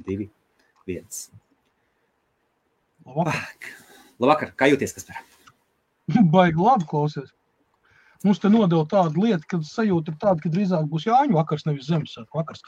2, 1. Labvakar, kā jūties, Kaspar? Baigi labi klausies. Mums te nodeva tāda lieta, kad sajūta ir tāda, ka drīzāk būs Jāņu vakars, nevis Ziemassvētku vakars.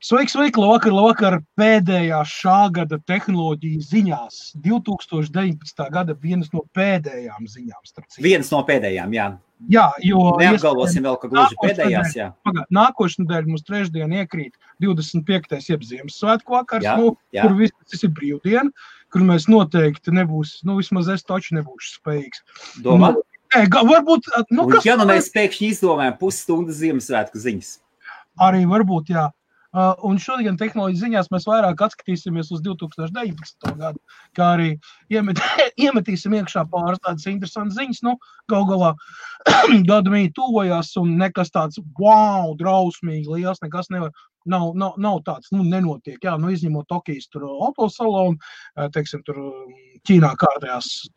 Sveiki, labvakar, pēdējā šā gada tehnoloģiju ziņās. 2019. gada vienas no pēdējām ziņām. Vienas no pēdējām, jā. Jā, jo... Neapgalvosim vēl, ka gluži pēdējās, jā. Nākošu nedēļu mums trešdien iekrīt 25. jeb Ziemassvētku vakars, kur viss ir brīvdiena, kur mēs noteikti nebūs, vismaz es taču nebūšu spējīgs. Domā? Varbūt... Ja mēs pēkšņi izdomājam pusstundas Ziemassvētku ziņas. Arī varbūt, jā. Un šodien tehnoloģiju ziņās mēs vairāk atskatīsimies uz 2019. gadu, kā arī iemetīsim iekšā pāris tādas interesantas ziņas. Galā gada mīja tuvojās un nekas tāds drausmīgi liels, nekas nav tāds, nenotiek. Jā, izņemot Tokijas tur autosalonu, teiksim, tur Ķīnā kārtējās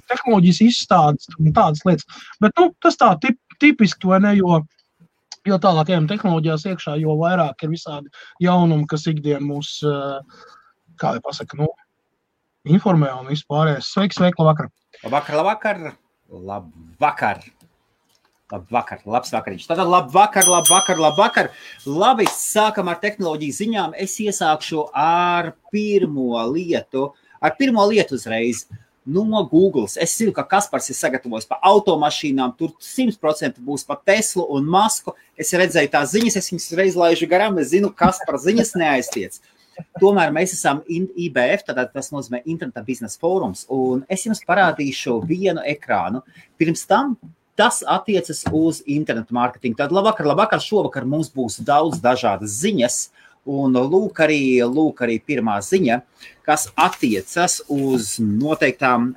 tehnoloģijas izstādes un tādas lietas. Bet, tas tā tipiski, vai ne, jo tālākajām tehnoloģijās iekšā, jo vairāk ir visādi jaunumi, kas ikdien mūs, kā lai pasaka, informē un vispārējais. Sveiki, labvakar! Labs vakariņš. Tātad labvakar. Labi, sākam ar tehnoloģiju ziņām. Es iesākšu ar pirmo lietu uzreiz. No Googles. Es zinu, ka Kaspars ir sagatavojis par automašīnām, tur 100% būs par Teslu un Masku. Es redzēju tās ziņas, es viņas reiz laižu garām, es zinu, Kaspar ziņas neaiztiec. Tomēr mēs esam IBF, tātad tas nozīmē Interneta biznesa fórums, un es jums parādīšu vienu ekrānu. Pirms tam tas attiecas uz internetu mārketingu. Tad labvakar, šovakar mums būs daudz dažādas ziņas, un lūk arī pirmā ziņa, kas attiecas uz noteiktām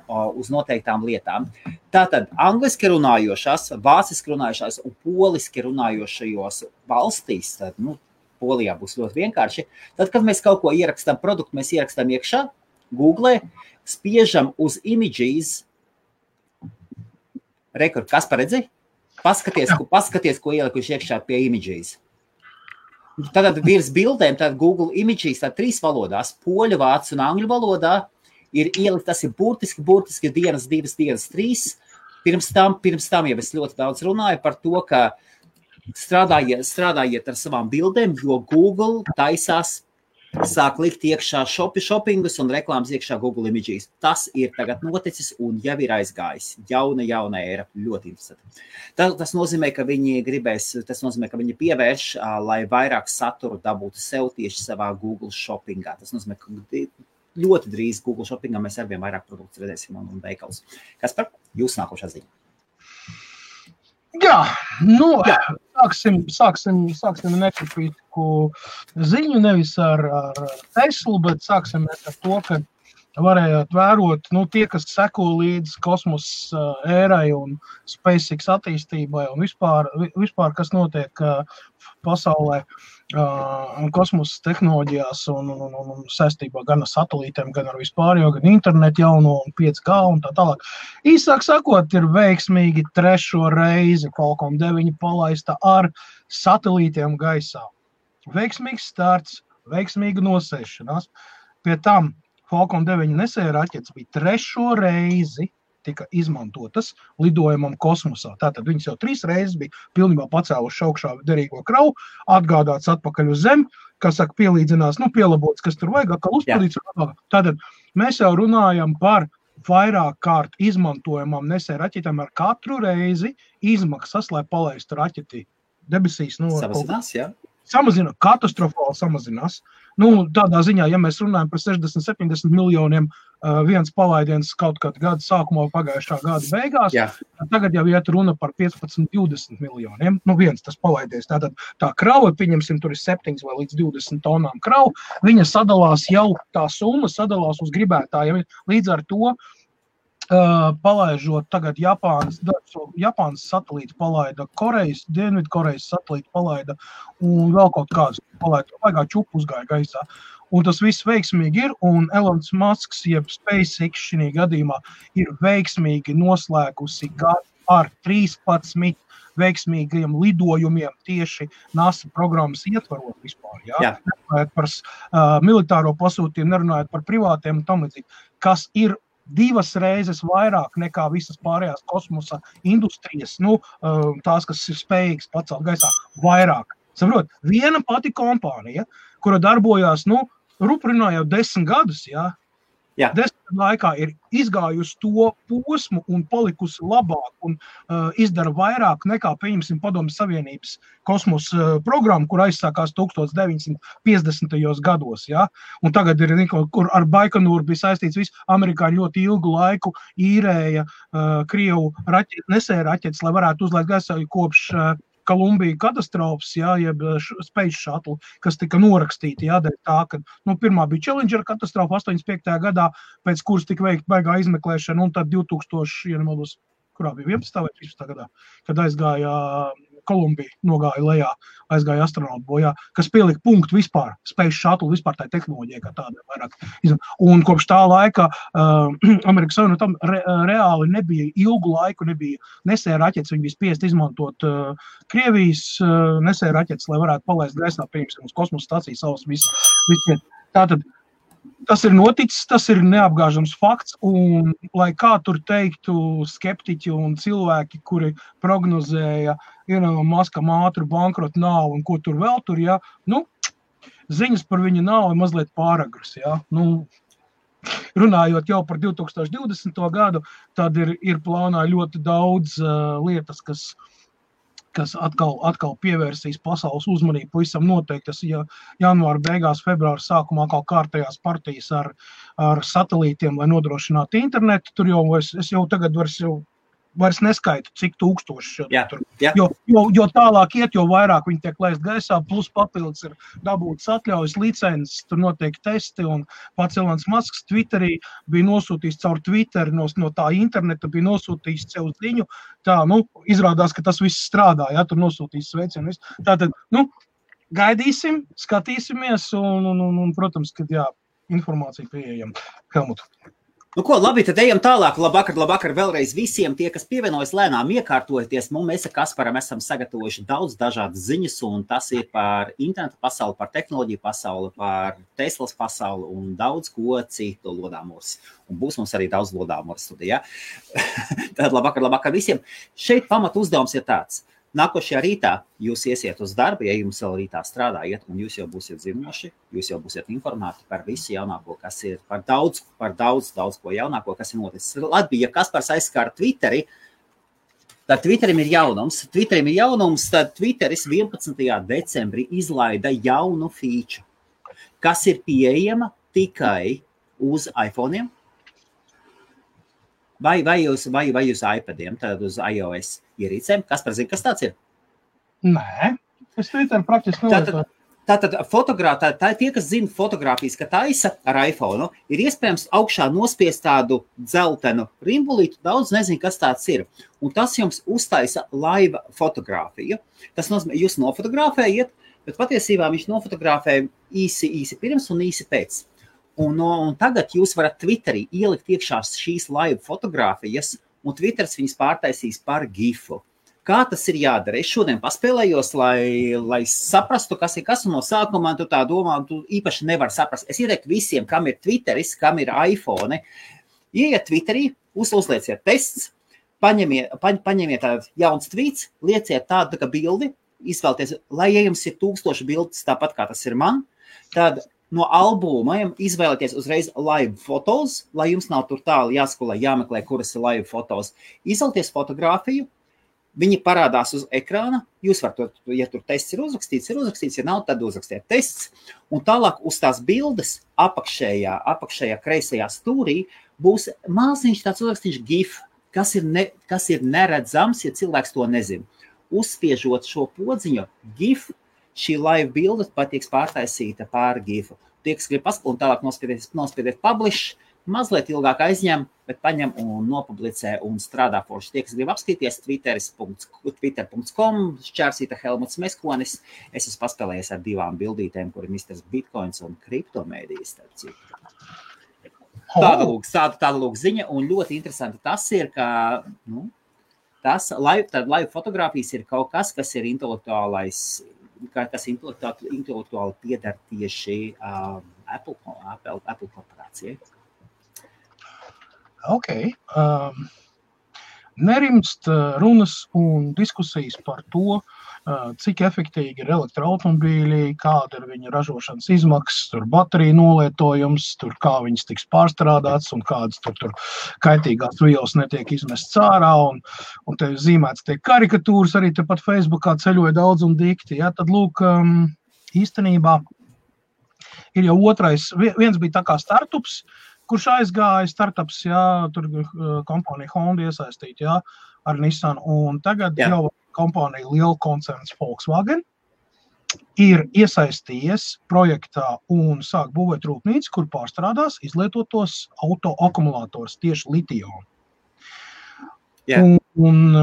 lietām. Tātad angliski runājošās, vāciski runājošās un poliski runājošajos valstīs, tad, Polijā būs ļoti vienkārši. Tad, kad mēs kaut ko ierakstām produktu, mēs ierakstām iekšā, Google, spiežam uz images. Rekord, kas paredzi? Paskaties, ko ielikuši iekšā pie images. Tātad virs bildēm, tātad Google Images, tātad 3 valodās, poļu, vācu un angļu valodā, ir ielikt, tas ir burtiski dienas, 2 dienas, 3. Pirms tam jau es ļoti daudz runāju par to, ka strādājiet ar savām bildēm, jo Google taisās sāk likt iekšā shoppingus un reklāmas iekšā Google Images. Tas ir tagad noticis un jau ir aizgājis. Jauna era, ļoti interesanti. Tas nozīmē, ka viņi pievērš, lai vairāk saturu dabūtu sev tieši savā Google shoppingā. Tas nozīmē, ka ļoti drīz Google shoppingā mēs arvien vairāk produktus redzēsim un veikals. Kaspar, jūs nākošā ziņa? Jā, sāksim nekritisku ziņu, nevis ar Teslu, bet sāksim ar to, ka varējāt vērot, tie, kas seko līdz kosmosa ērai un SpaceX attīstībai un vispār kas notiek pasaulē kosmosa tehnoloģijās un saistībā gan ar satelītiem, gan ar vispārējo, gan internetu jauno un 5G un tā tālāk. Īsāk sakot, ir veiksmīgi 3. reizi Falcon 9 palaista ar satelītiem gaisā. Veiksmīgs starts, veiksmīga nosēšanās. Pie tam Falcon 9 nesēja raķetes bija 3. reizi tika izmantotas lidojumam kosmosā. Tātad viņas jau 3 reizes bija pilnībā pacēluši augšā derīgo kravu, atgādāts atpakaļ uz zemi, kas saka pielīdzinās, pielabots, kas tur vajag, atkal uzpildīts. Tātad mēs jau runājam par vairāk kārt izmantojamām nesēja raķetēm ar katru reizi izmaksas, lai palaistu raķeti debesīs. Samazinās, jā? Samazina, katastrofāli samazinās. Tādā ziņā, ja mēs runājam par 60-70 miljoniem viens palaidiens kaut kādu gadu sākumā pagājušā gada beigās, tagad jau iet runa par 15-20 miljoniem. Viens tas palaidiens. Tātad tā krava, pieņemsim, tur ir 7 vai līdz 20 tonām kravu, viņa sadalās jau, tā summa sadalās uz gribētājiem. Līdz ar to palaižot tagad Japānas satelīti palaida, Dienvidkorejas satelīti palaida un vēl kaut kāds palaida. Vaigā čupu uzgāja gaisā. Un tas viss veiksmīgi ir, un Elons Musks, jeb SpaceX šī gadījumā, ir veiksmīgi noslēgusi gadu ar 13 veiksmīgiem lidojumiem tieši NASA programmas ietvarot vispār. Jā. Nerunājot par militāro pasūtījumu, nerunājot par privātiem un tam līdzīgi, kas ir 2 reizes vairāk nekā visas pārējās kosmosa industrijas, tās, kas ir spējīgas pacelt gaisā, vairāk. Saprot, viena pati kompānija, kura darbojās, ruprinā jau 10 gadus, jā. 10 laikā ir izgājusi to posmu un palikusi labāk un izdara vairāk nekā, pieņemsim, Padomju Savienības kosmosa programma, kur aizsākās 1950. gados. Ja? Un tagad ir, kur ar Baikonūru bija saistīts viss, amerikāņi ļoti ilgu laiku īrēja Krievu nesēja raķetes, lai varētu uzlaist gaisā kopš Kolumbija katastrofas, jeb Space Shuttle, kas tika norakstīti, dēļ tā, ka, pirmā bija Challenger katastrofa 85. gadā, pēc kuras tika veikta baigā izmeklēšana, un tad 2000, kurā bija 11. vai 13. gadā, kad aizgāja Kolumbija, nogāja lejā, aizgāja astronautu bojā, kas pielika punktu vispār, Space Shuttle, vispār tā tehnoloģija, kā tāda vairāk. Un kopš tā laika Amerikas Savienotam reāli nebija ilgu laiku, nebija nesēja raķetes, viņi bija spiest izmantot Krievijas nesēja raķetes, lai varētu palaist gaisā, piemēram, uz kosmosa stācijas savas visu. Tātad, tas ir noticis, tas ir neapgāžams fakts, un lai kā tur teiktu skeptiķi un cilvēki, kuri prognozēja, Maskam ātru bankrotu nav un ko tur vēl tur, ziņas par viņa nav mazliet pāragras, runājot jau par 2020. gadu, tad ir plānā ļoti daudz lietas, kas atkal pievērsīs pasaules uzmanību, pavisam noteikti, tas janvāra beigās, februāra sākumā kā kārtējās partijas ar satelītiem, lai nodrošinātu internetu, tur es jau tagad vairs neskaitu, cik tūkstoši. Jo tālāk iet, jo vairāk viņi tiek laist gaisā, plus papildus ir dabūtas atļaujas, licences, tur notiek testi, un pats Elons Musks Twitterī bija nosūtījis caur Twitteri, no tā interneta bija nosūtījis sev ziņu, izrādās, ka tas viss strādā, tur nosūtījis sveicienu. Tātad, gaidīsim, skatīsimies, un protams, kad informācija pieejama. Helmut. Ko, labi, tad ejam tālāk. Labvakar vēlreiz visiem tie, kas pievienojas lēnām iekārtojoties. Mēs ar Kasparam esam sagatavojuši daudz dažādas ziņas, un tas ir par internetu pasauli, par tehnoloģiju pasauli, par Teslas pasauli un daudz ko citu lodāmos. Un būs mums arī daudz lodāmos studijā. Tad labvakar visiem. Šeit pamat uzdevums ir tāds. Nākošajā rītā jūs iesiet uz darbu, ja jums vēl rītā strādājiet, un jūs jau būsiet zinoši, jūs jau būsiet informēti par visu jaunāko, kas ir, par daudz ko jaunāko, kas ir noticis. Labi, ja Kaspars aizskāra Twitteri, tad Twitterim ir jaunums, tad Twitteris 11. decembrī izlaida jaunu feature, kas ir pieejama tikai uz iPhone'iem, vai uz iPadiem, tad uz iOS ierīcēm. Kaspar zina, kas tāds ir? Nē, es Twitter praktiski nelietoju. Tātad tie, kas zina fotogrāfijas, ka taisa ar iPhone, ir iespējams augšā nospiest tādu dzeltenu rimbulītu, daudz nezinu, kas tāds ir. Un tas jums uztaisa live fotogrāfiju. Tas nozīmē, jūs nofotografējat, bet patiesībā viņš nofotografē īsi pirms un īsi pēc. Un tagad jūs varat Twitterī ielikt iekšā šīs live fotogrāfijas, un Twitters viņas pārtaisīs par gifu. Kā tas ir jādara? Es šodien paspēlējos, lai saprastu, kas ir kas, un no sākumā tu tā domā, tu īpaši nevar saprast. Es ieteiktu visiem, kam ir Twitteris, kam ir iPhone, ieiet Twitterī, uzlieciet tests, paņemiet tādu jauns tweets, lieciet tādu kā bildi, izvēlties, lai jums ir 1000 bildes, tāpat kā tas ir man, tad no albumiem izvēlēties uzreiz live fotos, lai jums nav tur tālu jāskolē, jāmeklē, kuras ir live fotos. Izvēlēties fotogrāfiju, viņi parādās uz ekrāna, jūs varat, ja tur tests ir uzrakstīts, ja nav, tad uzrakstiet tests, un tālāk uz tās bildes apakšējā kreisajā stūrī būs maziņš tāds uzrakstīts GIF, kas ir neredzams, ja cilvēks to nezina. Uzspiežot šo podziņu GIF, šī live bilde patiks pārtaisīta pār GIF-u. Tie, kas grib paskatīt, un tālāk nospiediet publish, mazliet ilgāk aizņem, bet paņem un nopublicē un strādā forši. Tie, kas grib apskatīties, twitter.com, šķērsīta Helmuts Meskonis. Es esmu paspēlējies ar 2 bildītēm, kur ir Mr. Bitcoins un kriptomēdijas. Tāda lūk ziņa, un ļoti interesanti tas ir, ka live fotogrāfijas ir kaut kas, kas ir kas intelektuāli pieder tieši Apple korporācijai. Ok. Nerimst runas un diskusijas par to, cik efektīgi ir elektroautomobīļi, kāda ir viņa ražošanas izmaksas, tur bateriju nolietojums, tur kā viņas tiks pārstrādāts un kādas tur kaitīgās vielas netiek izmests ārā un te zīmēts tiek karikatūras, arī tepat Facebookā ceļoja daudz un dikti. Ja? Tad lūk, īstenībā ir jau otrais, viens bija tā kā startups, kurš aizgāja startups, jā, tur kompānija Honda iesaistīt, jā, ar Nissan, un tagad jau kompānija liela koncerns Volkswagen ir iesaistījies projektā un sāk būvēt rūpnīcu, kur pārstrādās izlietotos autoakumulātors tieši litionu. Un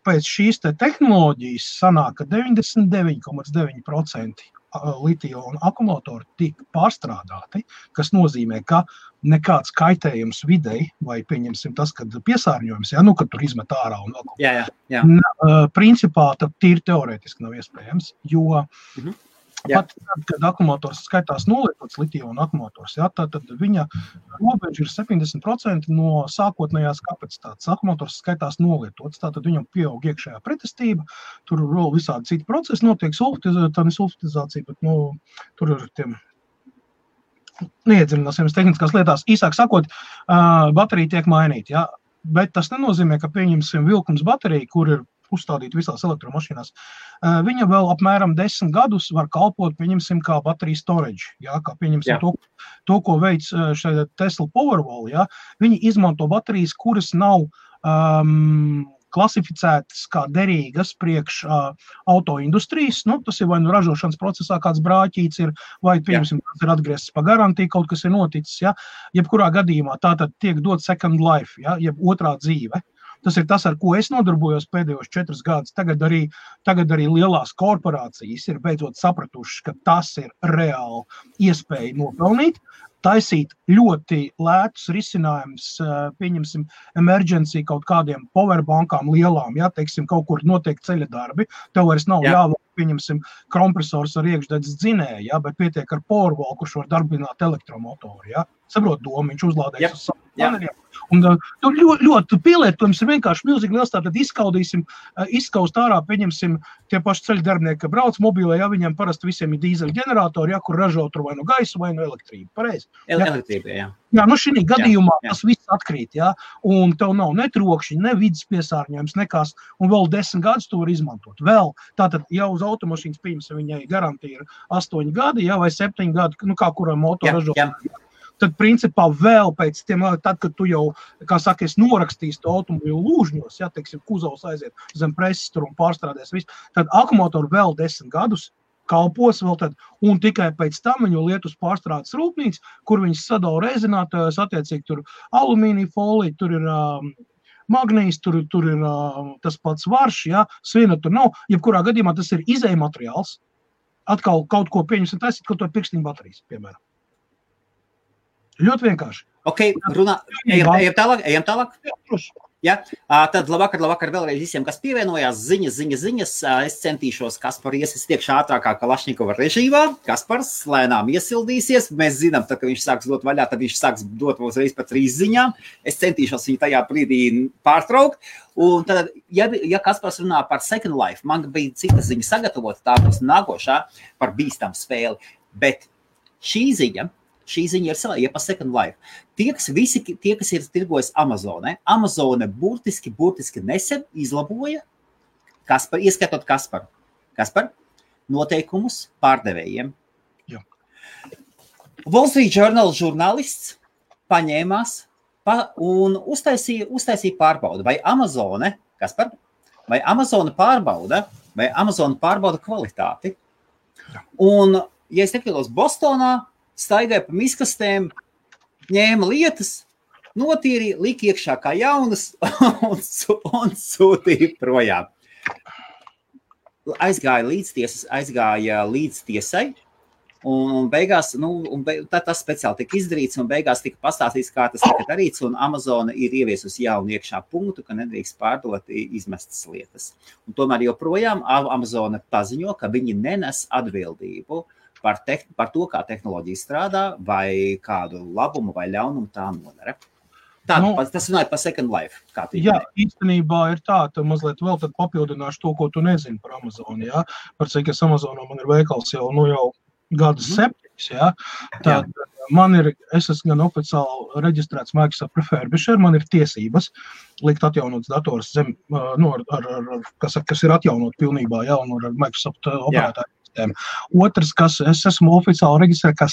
pēc šīs te tehnoloģijas sanāk, ka 99,9% litionu akumulātori tika pārstrādāti, kas nozīmē, ka nekāds kaitējums videi, vai pieņemsim tas, kad piesārņojums, ja, kad tur izmet ārā un vēl principā tad tīri teorētiski nav iespējams, jo pat tad, kad akumulators skaitās nolietots litionu akumulators, ja, tad viņa robeža ir 70% no sākotnējās kapacitātes. Akumulators skaitās nolietots, tātad viņam pieaug iekšējā pretestība, tur vēl visādi citi procesi notiek, sulfitizācija, bet tur ir tiem neiedziļināsimies tehniskās lietās. Īsāk sakot, baterija tiek mainīta, ja, bet tas nenozīmē, ka pieņemsim vilkums bateriju, kur ir uzstādīt visās elektromašīnās. Viņa vēl apmēram 10 gadus var kalpot, pieņemsim, kā baterija storage, ja, kā pieņemsim to, ko veic šeit Tesla Powerwall, ja. Viņi izmanto baterijas, kuras nav klasificētas kā derīgas priekš autoindustrijas, tas ir vai ražošanas procesā kāds brāķīts ir, vai, pieņemsim, tas ir atgriezts pa garantiju, kaut kas ir noticis, ja. Jebkurā gadījumā tātad tiek dot second life, ja, jeb otrā dzīve. Tas ir tas, ar ko es nodarbojos pēdējos 4 gadus. Tagad arī lielās korporācijas ir beidzot sapratušas, ka tas ir reāli iespēja nopelnīt, taisīt ļoti lētus risinājumus, pieņemsim, emergency kaut kādiem powerbankām lielām, ja, teiksim, kaut kur notiek ceļa darbi, tev vairs nav jāvāk, pieņemsim, kompresors ar iekšdedzes dzinēju, ja, bet pietiek ar Powerwall, kurš var darbināt elektromotoru, ja. Saprot domu, viņš uzlādēs uz savu paneļiem. Un tur ļoti pielietojums ir vienkārši milzīgi liels, tātad izskaust ārā, pieņemsim, tie paši ceļu darbinieki, brauc mobilē, ja viņiem parasti visiem ir dīzeļu ģeneratori, ja, kur ražo tur vai no gaisu vai no elektrību. Pareizi? Elektrība, jā. Jā, šī gadījumā tas viss atkrīt, ja, un tev nav ne trokšņi, ne vidas piesārņojums, nekās, un vēl 10 gadus to var izmantot. Vēl, tātad jau uz automašīnas pieņemsim, viņai garantija ir 8 gadi, ja, vai 7 gadi, kā kurai moto ražo. Tad, principā, vēl pēc tiem, tad, kad tu jau, kā saka, norakstīsi to automobīlu lūžņos, ja, teiksim, kuzovs aiziet zem preses tur un pārstrādēs visu, tad akumulātori vēl 10 gadus kalpos vēl tad, un tikai pēc tam viņu liet uz pārstrādes rūpnīcu, kur viņas sadala rezinātājos, attiecīgi tur alumīnija folija, tur ir magnīs, tur ir tas pats varš, ja, svina tur nav, jebkurā gadījumā tas ir izēja materiāls, atkal kaut ko pieņemsim taisīt, kaut to pirkstiņu baterijas, piemēram. Ļoti vienkārši. Ok, ejam tālāk. Ja? Tad labvakar vēlreiz visiem, kas pievienojās, ziņas. Es centīšos, Kaspar es tiekšu ātrākā Kalašņikova režīmā. Kaspars lēnām iesildīsies. Mēs zinām, tad, ka viņš sāks dot vaļā, tad viņš sāks dot uzreiz pa 3 ziņām. Es centīšos viņu tajā brīdī pārtraukt. Un tad, ja Kaspars runā par Second Life, man bija cita ziņa sagatavota, tā būs nākošā par bīstamu spēli. Bet šī ziņa ir par Second Life. Tie, kas ir tirgojis Amazone, Amazone burtiski nesen izlaboja, ieskatot Kasparu. Kaspar, noteikumus pārdevējiem. Jā. Wall Street Journal žurnālists paņēmās un uztaisīja pārbaudu, vai Amazone, Kaspar, vai Amazone pārbauda kvalitāti. Un, ja es nekļūdos, Bostonā staigāja pa miskastēm, ņēma lietas, notīrīja, lika iekšā kā jaunas un sūtīja projām. Aizgāja līdz tiesai, Un beigās, tas speciāli tika izdarīts, un beigās tika pastāstīts, kā tas tika darīts, un Amazona ir ieviesusi jaunu iekšā punktu, ka nedrīkst pārdot izmestas lietas. Un tomēr joprojām Amazona paziņo, ka viņi nenes atbildību par to, kā tehnoloģija strādā, vai kādu labumu vai ļaunumu tā nodara. Tas runāja par Second Life. Īstenībā ir tā, mazliet vēl tad papildināšu to, ko tu nezini par Amazonu, jā. Par cik es Amazonā man ir veikals jau gadus 7, jā. Tad es esmu gan oficiāli reģistrēts Microsoft Refurbisher, man ir tiesības likt atjaunots dators zem, kas ir atjaunot pilnībā, jā, un ar Microsoft operētāju sistēmu. Otrs, es esmu oficiāli reģistrēts kā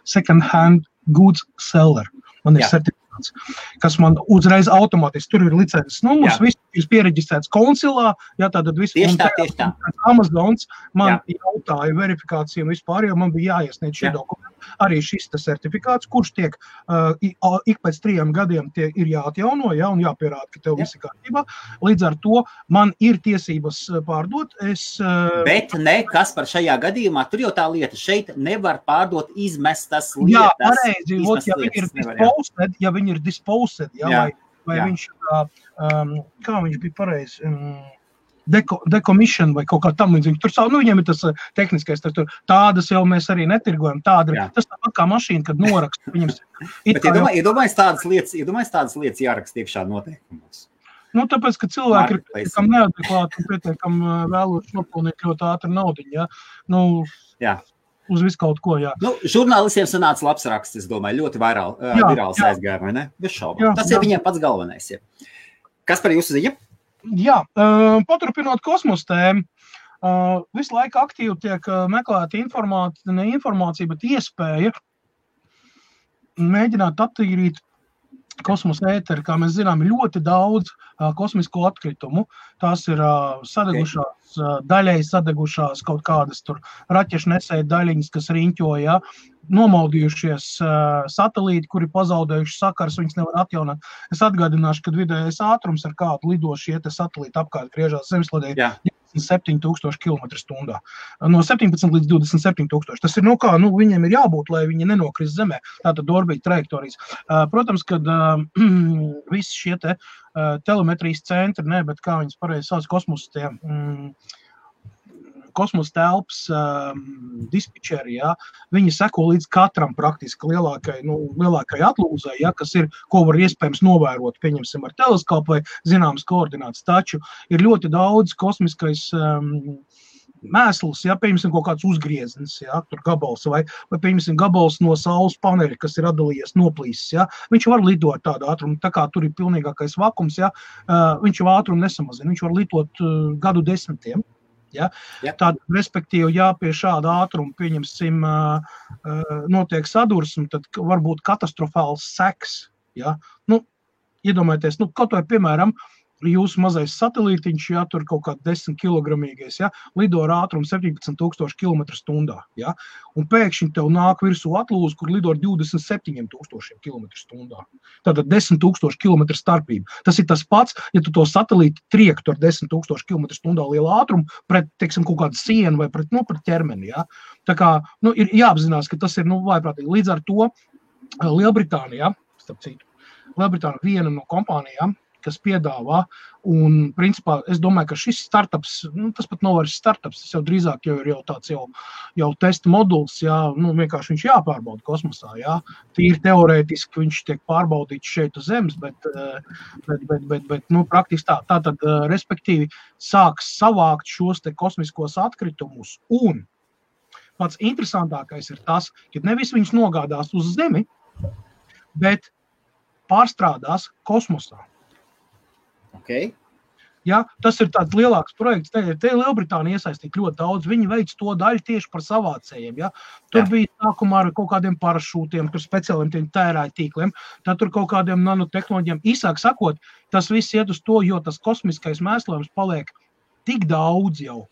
second hand goods seller. Man ir certifikāts, kas man uzreiz automātiski, tur ir licences numurs, viss ir piereģistrēts konsilā, tātad viss. Tieši tā. Amazons man jautāja verifikāciju un vispār, jo man bija jāiesniedz šie dokumenti. Arī šis certifikāts, kurš tiek ik pēc 3 gadiem ir jāatjauno, un jāpierāda, ka tev viss ir kārtībā. Līdz ar to man ir tiesības pārdot. Bet nekas par šajā gadījumā, tur jau tā lieta, šeit nevar pārdot izmestas lietas. Jā, pareizi, ja viņi ir disposed, vai viņš, kā viņš bija pareizi, decommission vai kaut kā tam līdzīgi. Tur viņiem ir tas tehniskais, tādas jau mēs arī netirgojam. Tas tāpat kā mašīna, kad noraksta. Bet iedomājies tādas lietas jāraksta iekšā noteikumos. Tāpēc, ka cilvēki ir pietiekami neadekvāti un pietiekami vēloši nopelnīt ļoti ātri naudiņu. Uz visu kaut ko, jā. Žurnālistiem sanāca labs raksts, es domāju, ļoti virāls aizgāja, vai ne? Bez šaubām. Tas ir viņiem pats galvenais. Kas par jūsu ziņa? Jā, paturpinot kosmosa tēmu, visu laiku aktīvi tiek meklēta informācija, bet iespēja mēģināt attīrīt kosmosa ēteri, kā mēs zinām, ļoti daudz kosmisko atkritumu. Tās ir sadegušās, daļai sadegušās kaut kādas tur raķešu nesēja daļiņas, kas riņķoja, nomaldījušies satelīti, kuri pazaudējuši sakars, viņas nevar atjaunot. Es atgādināšu, ka vidējais ātrums ar kādu lido šie satelīti apkārt griežās zemesladē 27,000 km/h. No 17 līdz 27,000. Tas ir, viņiem ir jābūt, lai viņi nenokrist zemē. Tātad orbīta trajektorijas. Protams, kad visi šie telemetrijas centri, bet kā viņas pareizi sauc, kosmosa telpas dispečeri, viņi seko līdz katram praktiski lielākai atlūzai, kas ir, ko var iespējams novērot, pieņemsim ar teleskopu vai zināmas koordinātas. Taču ir ļoti daudz kosmiskais mēsls, pieņemsim kaut kāds uzgrieznis, tur gabals, vai pieņemsim gabals no saules paneļa, kas ir atdalījies, noplīsis, viņš var lidot tādu ātrumu, tā kā tur ir pilnīgākais vakums, viņš jau ātrumu nesamazina, viņš var lidot gadu desmitiem. Tad, respektīvi, pie šāda ātruma, pieņemsim, notiek sadursme, tad var būt katastrofāls seks. Iedomājieties, kaut vai, piemēram, jūsu mazais satelītiņš, tur kaut kā 10 kilogramīgais, lido ar ātrumu 17,000 km/h, un pēkšņi tev nāk virsū atlūze, kur lido ar 27,000 km/h. Tātad 10,000 km starpība. Tas ir tas pats, ja tu to satelīti triektu ar 10,000 km/h lielu ātrumu pret, teiksim, kaut kādu sienu vai pret ķermeni, Tā kā, ir jāapzinās, ka tas ir, vājprātīgi. Līdz ar to Lielbritānijā, starp citu, Lielbritānija viena no kompānijām, kas piedāvā, un, principā, es domāju, ka šis startups, tas pat nav vairs startups, tas jau drīzāk ir tāds jau testa moduls, vienkārši viņš jāpārbauda kosmosā, Tīri teorētiski viņš tiek pārbaudīts šeit uz Zemes, bet praktiski tā. Tātad, respektīvi, sāks savākt šos kosmiskos atkritumus, un pats interesantākais ir tas, ka nevis viņš nogādās uz Zemi, bet pārstrādās kosmosā. Okay. Tas ir tāds lielāks projekts. Te Lielbritānija iesaistīt ļoti daudz. Viņi veic to daļu tieši par savācējiem. Tur bija sākumā ar kaut kādiem parašūtiem, tur speciāliem tērāju tīkliem, tad tur kaut kādiem nanotehnoloģiem. Īsāk sakot, tas viss iet uz to, jo tas kosmiskais mēslojums paliek tik daudz jau,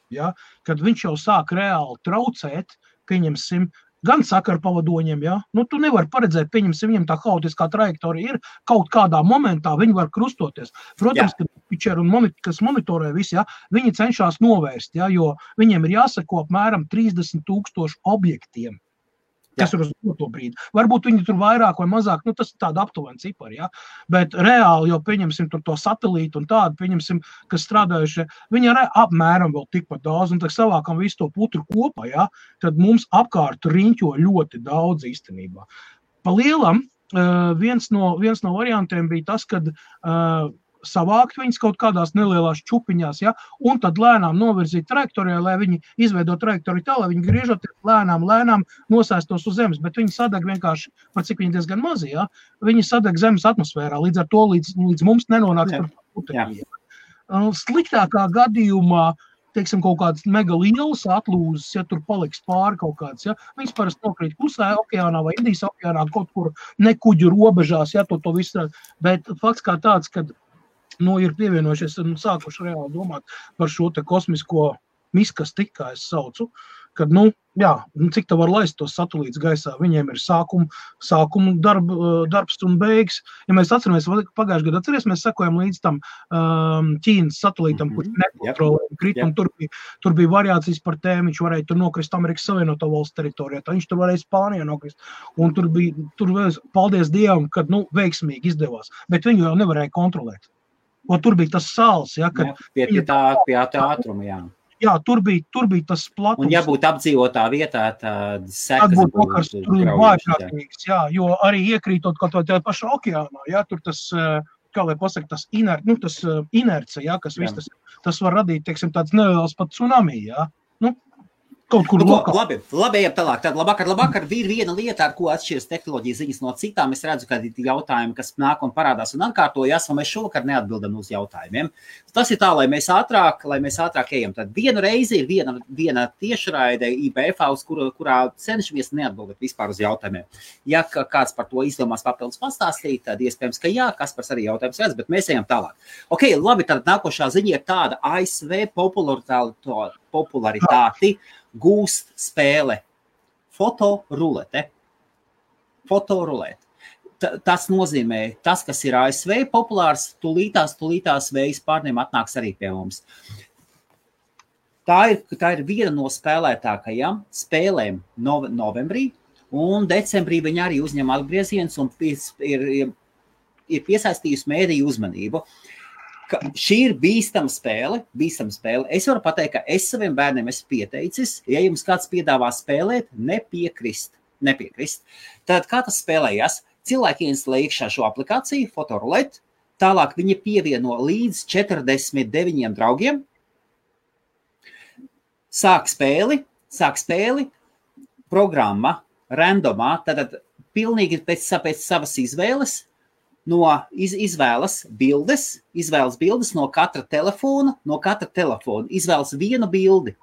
kad viņš jau sāk reāli traucēt, pieņemsim, gan sakarpavadoņiem, ja? Nu, tu nevari paredzēt, pieņemsim, viņam tā haotiskā trajektorija ir, kaut kādā momentā viņi var krustoties. Protams, ka pitcheri un kas monitorē visi, ja? Viņi cenšas novērst, ja? Jo viņiem ir jāseko apmēram 30,000 objektiem. Kas ir uz to brīdi. Varbūt viņi tur vairāk vai mazāk, nu tas ir tāda aptuvena cipari, ja? Bet reāli jau pieņemsim tur to satelītu un tādu, pieņemsim, kas strādājuši, viņi arī apmēram vēl tikpat daudz, un tad savākam visu to putru kopā, ja? Tad mums apkārt riņķo ļoti daudz īstenībā. Pa lielam, viens no variantiem bija tas, kad savākt viņas kaut kādās nelielās čupiņās, ja, un tad lēnām novirzīt trajektorijā, lai viņi izveido trajektoriju tā, lai viņi griežoties lēnām nosēstos uz zemes, bet viņi sadeg vienkārši, par cik viņi diezgan mazi, ja, viņi sadeg zemes atmosfērā, līdz ar to līdz mums nenonāks par putekļiem. Sliktākā gadījumā, teiksim, kaut kādas mega lielas atlūzes, ja tur paliks pāri kaut kāds, ja, viņas parasti nokrīt Klusajā okeānā vai Indijas okeānā, kaut kur nekuģu robežās, ja, to visu, bet fakts kā tāds, kad ir pievienojušies un sākuši reāli domāt par šo te kosmisko miskasti, kā es saucu, kad, cik tā var laist tos satelītus gaisā, viņiem ir sākuma darbs un beigas. Ja mēs atceramies, pagājušajā gadā mēs sekojam līdz tam Ķīnas satelītam, kurš nekontrolēja kritumu, tur bija variācijas par tēmu, viņš varēja tur nokrist Amerikas Savienoto Valstu teritorijā, tā viņš tur varēja Spānijā nokrist, un tur paldies Dievam, kad, veiksmīgi izdevās, bet viņu jau nevarēja kontrolēt. Un tur bija tas sāls, ja, kad... Pie tā ātruma, jā. Jā, tur bija tas platums. Un ja būtu apdzīvotā vietā, tad sekas būtu vājprātīgas, jā, jo arī iekrītot kaut vai pašā okeānā, jā, tur tas, kā lai pasaka, tas inerce, jā, kas viss tas var radīt, teiksim, tāds neliels pat tsunami, jā. Kaut kur labi, ejam tālāk. Tad labvakar, ir viena lieta, ar ko atšķiras tehnoloģijas ziņas no citām. Es redzu, ka ir jautājumi, kas nāk un parādās un atkārtojas, un mēs šovakar neatbildam uz jautājumiem. Tas ir tā, lai mēs ātrāk ejam. Tad vienu reizi ir viena tiešraide IBF, kurā cenšamies neatbildēt vispār uz jautājumiem. Ja kāds par to izdomās papildus pastāstīt, tad iespējams, ka jā, Kaspars arī jautājums redz, bet mēs ejam tālāk. Ok, labi, tad nākošā ziņa ir tāda ASV popularitāti gūst spēle fotorulete. Tas nozīmē, tas, kas ir ASV populārs, tulītās vējas pārniem atnāks arī pie mums. Tā ir viena no spēlētākajām spēlēm novembrī, un decembrī viņi arī uzņem atgrieziens un ir piesaistījusi mēdīju uzmanību. Šī ir bīstama spēle. Es varu pateikt, ka es saviem bērniem esmu pieteicis, ja jums kāds piedāvā spēlēt, nepiekrist. Tad kā tas spēlējas? Cilvēki instalē iekšā šo aplikāciju, fotoruleti, tālāk viņi pievieno līdz 49 draugiem, sāk spēli, programma, randomā, tātad pilnīgi pēc savas izvēles, izvēlas bildes no katra telefona, izvēlas vienu bildi.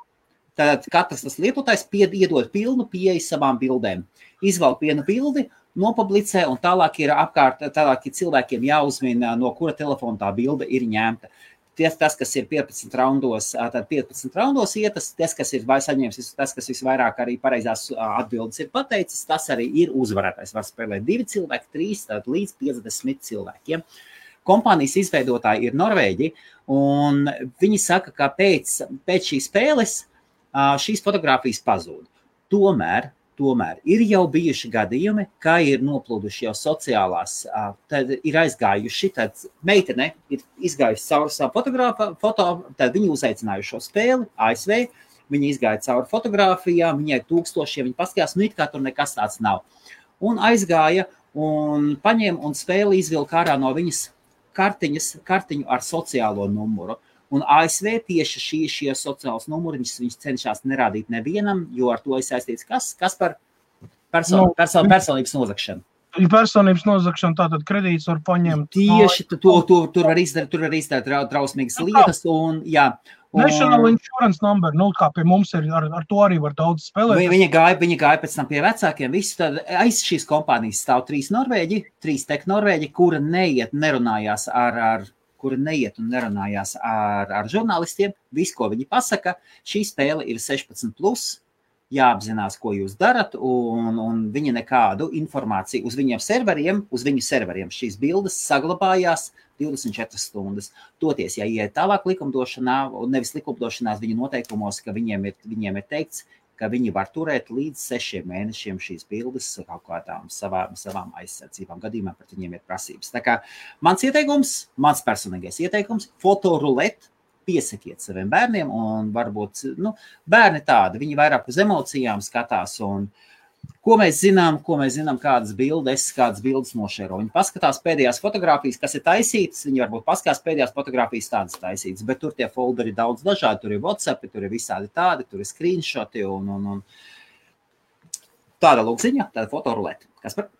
Tātad katrs tas lietotājs iedod pilnu pieeju savām bildēm. Izvēl vienu bildi, nopublicē, un tālāk ir cilvēkiem jāuzmina, no kura telefona tā bilde ir ņemta. Tas, kas ir 15 raundos ietas, tas, kas ir saņēmis, tas, kas visvairāk arī pareizās atbildes ir pateicis, tas arī ir uzvarētājs. Var spēlēt 2 cilvēki, 3, līdz 50 cilvēkiem. Kompānijas izveidotāji ir Norvēģi, un viņi saka, ka pēc šīs spēles šīs fotogrāfijas pazūd. Tomēr ir jau bijuši gadījumi, kā ir noplūduši jau sociālās, tad ir aizgājuši, tad meitene ir izgājusi cauri savu foto, tad viņi uzaicinājuši šo spēli, ASV, viņi izgāja cauri fotogrāfijām, viņai 1000, viņi paskatījās, it kā tur nekas tāds nav. Un aizgāja un paņēma un spēli izvilka ārā no viņas kartiņu ar sociālo numuru. Un ASV tieši šie sociālos numuri viņš cenšas nerādīt nevienam, jo ar to ir saistīts kas par personības nozagšanu. Personības nozagšana, tātad kredīts var paņemt. Tieši tur var izdarīt drausmīgas lietas. Un, jā, National Insurance Number, kā pie mums ir, ar to arī var daudz spēlēt. Viņa gāja pēc tam pie vecākiem. Tad aiz šīs kompānijas stāv 3 tech norvēģi, kura neiet un nerunājās ar žurnālistiem. Viss, ko viņi pasaka, šī spēle ir 16+. jāapzinās, ko jūs darat, un viņi nekādu informāciju uz viņu serveriem šīs bildes saglabājās 24 stundas. Toties, ja iet tālāk likumdošanā, un nevis likumdošanās viņu noteikumos, ka viņiem ir teikts, ka viņi var turēt līdz 6 mēnešiem šīs bildes kaut kādām savām aizsardzībām. Gadījumā pret viņiem ir prasības. Tā kā mans personīgais ieteikums, fotorulēt, piesakiet saviem bērniem, un varbūt, bērni tādi, viņi vairāk uz emocijām skatās, un ko mēs zinām, kādas bildes nošēro. Viņi paskatās pēdējās fotogrāfijas, kas ir taisītas, viņi varbūt paskatās pēdējās fotogrāfijas tādas taisītas, bet tur tie folderi daudz dažādi, tur ir WhatsApp, tur ir visādi tādi, tur ir screenshoti, un tāda lūkziņa, tāda fotorulēta. Kas par?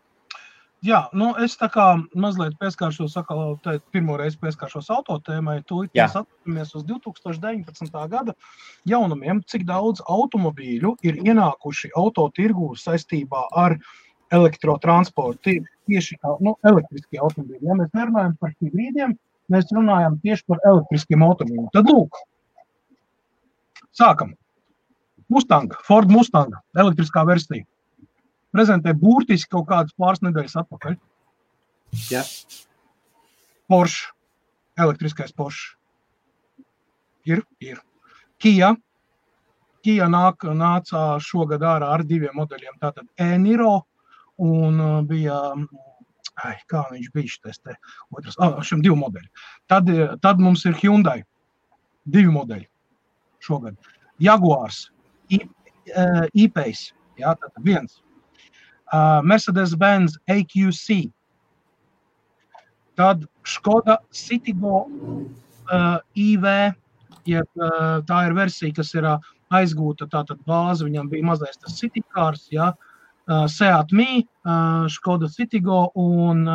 Jā, es tā kā mazliet pieskāršos, pirmo reizi pieskāršos autotēmai, mēs atceramies uz 2019. gada jaunumiem, cik daudz automobīļu ir ienākuši autotirgū saistībā ar elektrotransportu, tieši elektriskie automobīļi. Ja mēs nerunājam par hibrīdiem, mēs runājam tieši par elektriskiem automobīļiem. Tad lūk, sākam. Ford Mustang, elektriskā versija. Prezentē būtiski kaut kādas pāris nedēļas atpakaļ. Jā. Porsche, elektriskais Porsche. Ir. Kia nāca šogad ārā ar 2 modeļiem. Tātad e-Niro un bija, kā viņš bija šitais te otrs, šim 2 modeļi. Tad mums ir Hyundai, 2 modeļi šogad. Jaguars, E-Pace, jā, tātad 1. Mercedes-Benz AQC, tad Škoda Citigo IV, tā ir versija, kas ir aizgūta, tātad bāze, viņam bija mazais tas Citycars, Seat Mii, Škoda Citigo un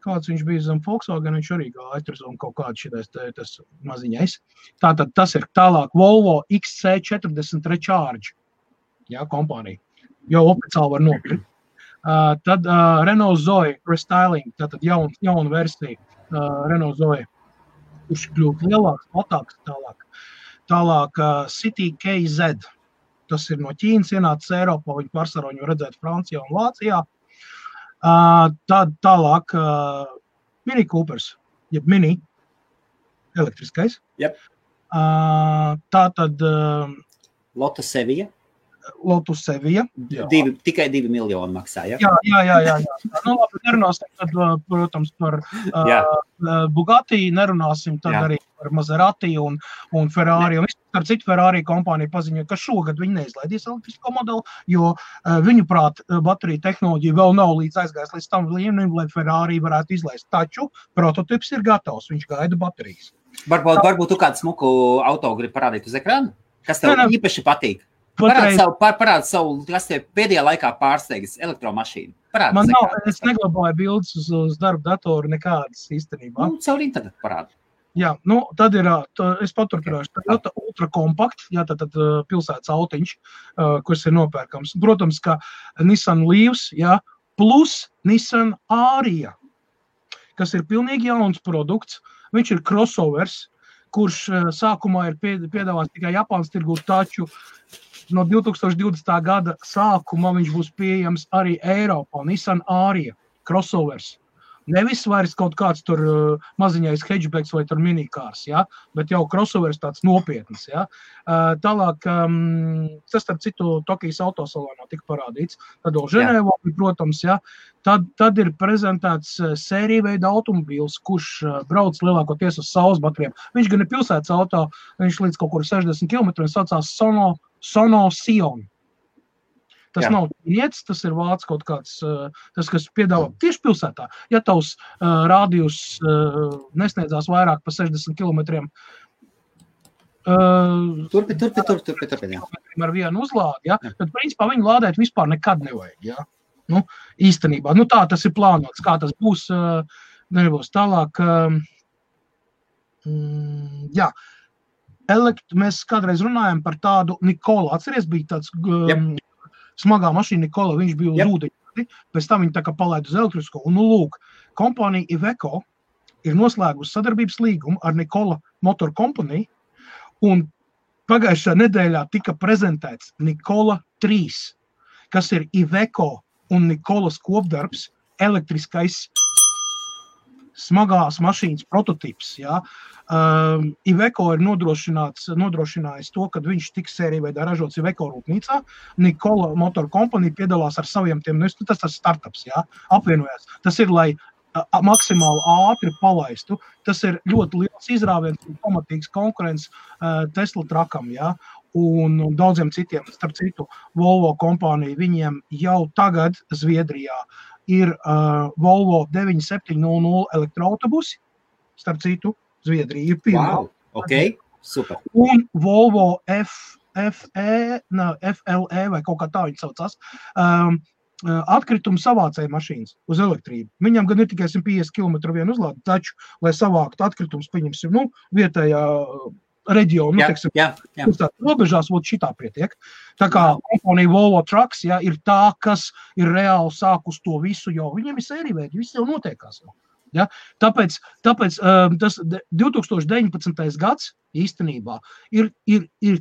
kāds viņš bija zem Volkswagen, viņš arī gāja un kaut kāds šitais tas maziņais. Tātad tas ir tālāk Volvo XC40 Recharge, kompānija. Jau oficiāli var nopirkt. Tad Renault Zoe Restyling, tātad jauna versija Renault Zoe, kurš kļūt lielāks, platāks tālāk. Tālāk City KZ, tas ir no Ķīnas ienācis Eiropā, viņi pārsvarā viņu redzēt Francijā un Vācijā. Tad tālāk Mini Coopers, jeb Mini, elektriskais. Yep. Tātad Lotus Sevilla. Tikai 2 miljoni maksā, ja? Jā. Labi, nerunāsim tad, protams, par Bugatti, nerunāsim tad arī par Maserati un Ferrari. Un ar citu Ferrari kompāniju paziņoja, ka šogad viņi neizlaidīs elektrisko modeli, jo viņuprāt bateriju tehnoloģija vēl nav aizgājis līdz tam līmenim, lai Ferrari varētu izlaist. Taču prototips ir gatavs, viņš gaida baterijas. Varbūt tu kādu smuku auto grib parādīt uz ekrānu? Kas tev īpaši patīk? Parādi savu, kas tev pēdējā laikā pārsteigis elektromašīnu. Man nav, es neglabāju bildes uz darba datoru nekādas īstenībā. Caur internetu parādi. Jā, tad ir, es paturpināšu, Toyota Ultra Compact, tad pilsētas autiņš, kurš ir nopērkams. Protams, ka Nissan Leafs, plus Nissan Aria, kas ir pilnīgi jauns produkts. Viņš ir crossovers, kurš sākumā ir piedāvāts tikai Japānas tirgū, taču no 2020. gada sākumā viņš būs pieejams arī Eiropā. Nissan Aria, crossovers. Nevis vairs kaut kāds tur maziņais hatchbacks vai tur minikārs, bet jau crossovers tāds nopietns. Tālāk, tas starp citu Tokijas autosalonā tika parādīts. Tad vēl Ženēvā, protams, tad ir prezentēts sērija veida automobīls, kurš brauc lielākoties uz saules baterijām. Viņš gan ir pilsētas auto, viņš līdz kaut kur 60 km saucās Sono Sion. Tas nav ķīnietis, tas ir vācis kaut kāds, tas, kas piedāvā tieši pilsētā. Ja tavs rādījus nesniedzās vairāk pa 60 kilometriem, Turpin. Ar vienu uzlādi, tad principā viņu lādēt vispār nekad nevajag. Īstenībā, tā tas ir plānots, kā tas būs, nebūs tālāk. Mēs kādreiz runājam par tādu Nikola. Atceries, bija tāds smagā mašīna Nikola, viņš bija uz ūdeņi, pēc tam viņi tā kā palaid uz elektrisko. Un, lūk, kompānija Iveco ir noslēgusi sadarbības līgumu ar Nikola Motor Company, un pagājušā nedēļā tika prezentēts Nikola 3, kas ir Iveco un Nikolas kopdarbs, elektriskais smagās mašīnas prototips. Ja? Iveco ir nodrošinājis to, ka viņš tiks sērija veidā ražots Iveco rūpnīcā. Nikola Motor Company piedalās ar saviem tiem, tas ir startups, ja? Apvienojās. Tas ir, lai maksimāli ātri palaistu. Tas ir ļoti liels izrāviens un pamatīgs konkurence Tesla trakam, ja? Un daudziem citiem, starp citu, Volvo kompānija, viņiem jau tagad Zviedrijā ir Volvo 9700 elektroautobusi, starp citu, Zviedrija ir pirmā. Wow, ok, super. Un Volvo FLE vai kaut kā tā viņi saucās, atkritumu savācēja mašīnas uz elektrību. Viņam gan ir tikai 150 km vienu uzlādi, taču, lai savāktu atkritumus, pieņemsim, vietējā reģionu, robežās, šitā pietiek. Tā kā kompanija Volvo Trucks, ja, ir tā, kas ir reāli sākus to visu, jo viņiem ir sērīvēdi, viss jau notiekās. Ja? Tāpēc tas 2019. gads īstenībā ir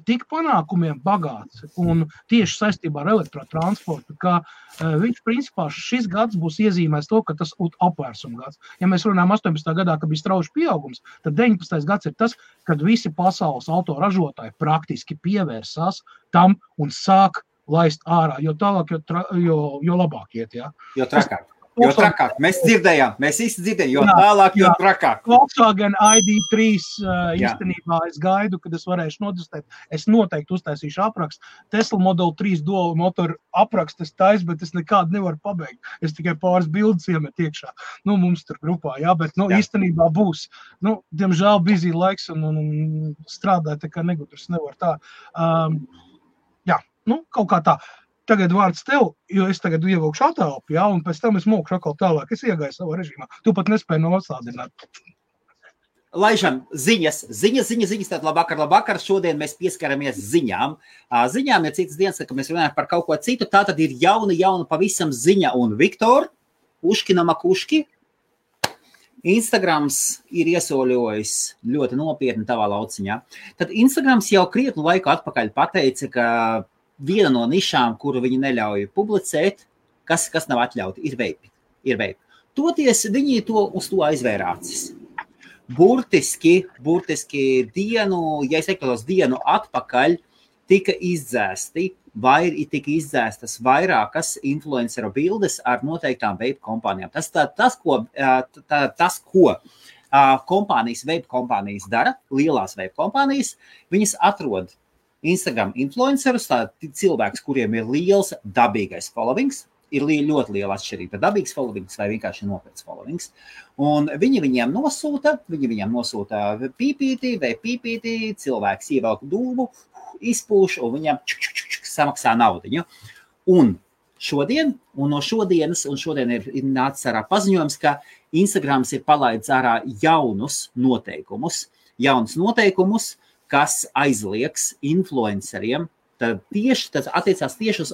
tik panākumiem bagāts un tieši saistībā ar elektrotransportu, ka viņš principā šis gads būs iezīmēs to, ka tas apvērsuma gads. Ja mēs runājam 18. gadā, ka bija strauji pieaugums, tad 19. gads ir tas, kad visi pasaules autoražotāji praktiski pievērsās tam un sāk laist ārā, jo tālāk, jo labāk iet. Ja? Jo trakāk. Jo trakāk. Mēs dzirdējām, mēs visi dzirdējām, jo tālāk, jo trakāk. Volkswagen ID3 īstenībā es gaidu, kad es varēšu notestēt. Es noteikti uztaisīšu aprakstu. Tesla Model 3 dual motoru aprakstu es taisu, bet es nekādu nevaru pabeigt. Es tikai pāris bildes iemet iekšā. Mums tur grupā, jā, bet īstenībā būs. Diemžēl busy laiks un strādāt, tā kā negudrs nevar tā. Kaut kā tā. Tagad vārds tev, jo es tagad ievilkšu atelpu, ja, un pēc tam es mūkšu atkal tālāk. Es iegāju savā režīmā. Tu pat nespēji noslādināt. Laižam ziņas. Tad labvakar. Šodien mēs pieskaramies ziņām. Ziņām ir citas dienas, kad mēs runājam par kaut ko citu. Tā tad ir jauna pavisam ziņa. Un Viktor, Uškina Makuški, Instagrams ir iesoļojis ļoti nopietni tavā lauciņā. Tad Instagrams jau krietnu laiku atpakaļ pateica, ka viena no nišām, kuru viņi neļauj publicēt, kas nav atļauti, ir veipi. Toties viņi uz to aizvērācis. Burtiski dienu atpakaļ tika izdzēstas vairākas influenceru bildes ar noteiktām veipu kompānijām. Tas, ko kompānijas, veipu kompānijas dara, lielās veipu kompānijas, viņas atrod Instagram influencerus, cilvēks, kuriem ir liels dabīgais followings, ir ļoti liela atšķirība dabīgs followings vai vienkārši nopietns followings. Un viņi viņiem nosūta pīpīti, cilvēks ievelk dūmu, izpūš un viņam samaksā naudiņu. Un šodien ir nācis ārā paziņojums, ka Instagrams ir palaidis ārā jaunus noteikumus, kas aizliegs influenceriem, tas attiecās tieši uz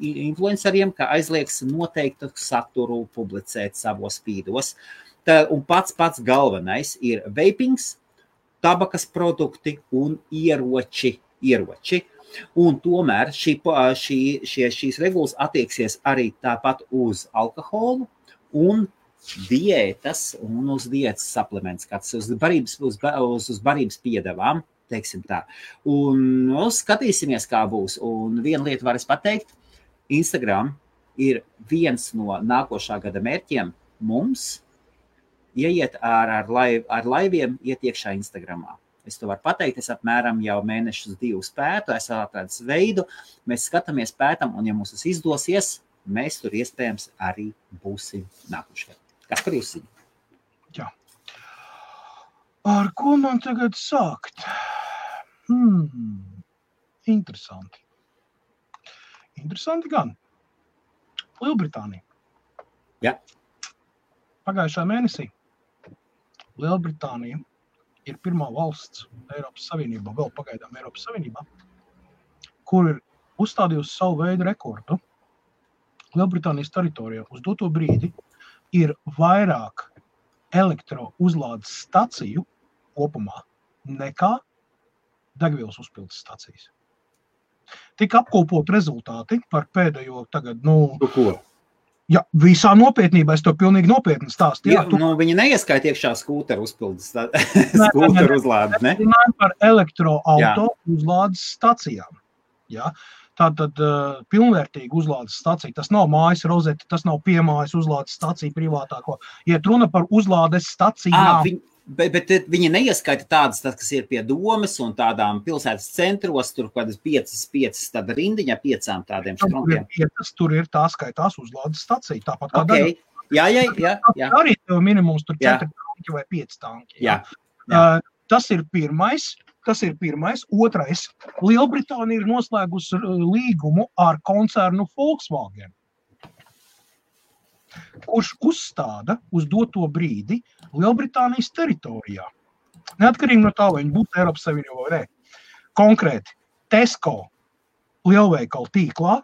influenceriem, ka aizliegs noteiktu saturu publicēt savos feedos. Un pats galvenais ir vapings, tabakas produkti un ieroči. Un tomēr šīs regulas attieksies arī tāpat uz alkoholu un diētas un uz diētas suplements, kāds uz barības piedevām, teiksim tā. Un skatīsimies, kā būs. Un viena lieta var es pateikt, Instagram ir viens no nākošā gada mērķiem mums ieiet ar laiviem iet iekšā Instagramā. Es to varu pateikt, es apmēram jau mēnešus 2 pētu, es atradis veidu, mēs skatāmies pētam, un ja mums tas izdosies, mēs tur iespējams arī būsim nākošajā. Kas par jūs ziņu? Jā. Ar ko man tagad sākt? Interesanti. Interesanti gan. Lielbritānija. Jā. Pagājušā mēnesī Lielbritānija ir pirmā valsts Eiropas Savienībā, vēl pagaidām Eiropas Savienībā, kur ir uzstādījusi savu veidu rekordu. Lielbritānijas teritorijā uz doto brīdi ir vairāk elektrouzlādes staciju kopumā nekā degvielas uzpildes stacijas. Tika apkopot rezultāti par pēdējo tagad, Ko? Ja, visā nopietnībā, es to pilnīgi nopietni stāstu. Jā, viņi neieskaita iekšā skūteru uzpildes, skūteru uzlādi, ne? Runājam par elektroauto uzlādes stacijām. Ja? Tātad pilnvērtīga uzlādes stacija, tas nav mājas rozete, tas nav piemājas uzlādes stacija privātāko. Iet runa par uzlādes stacijām. Bet viņi neieskaita tādas, kas ir pie domes un tādām pilsētas centros, tur kādas 5 tāda rindiņa, 5 tādiem štrompiem. Tur ir tā skaitās uzlādes stacija, tāpat kā okay. Jā. Arī tev minimums tur 4 tanki vai 5 tanki. Jā. Tas ir pirmais. Otrais, Lielbritānija ir noslēgusi līgumu ar koncernu Volkswagen, kurš uzstāda uz doto brīdi Lielbritānijas teritorijā. Neatkarīgi no tā, vai viņi būtu Eiropas Savienībā vai ne. Konkrēti, Tesco lielveikalu tīklā,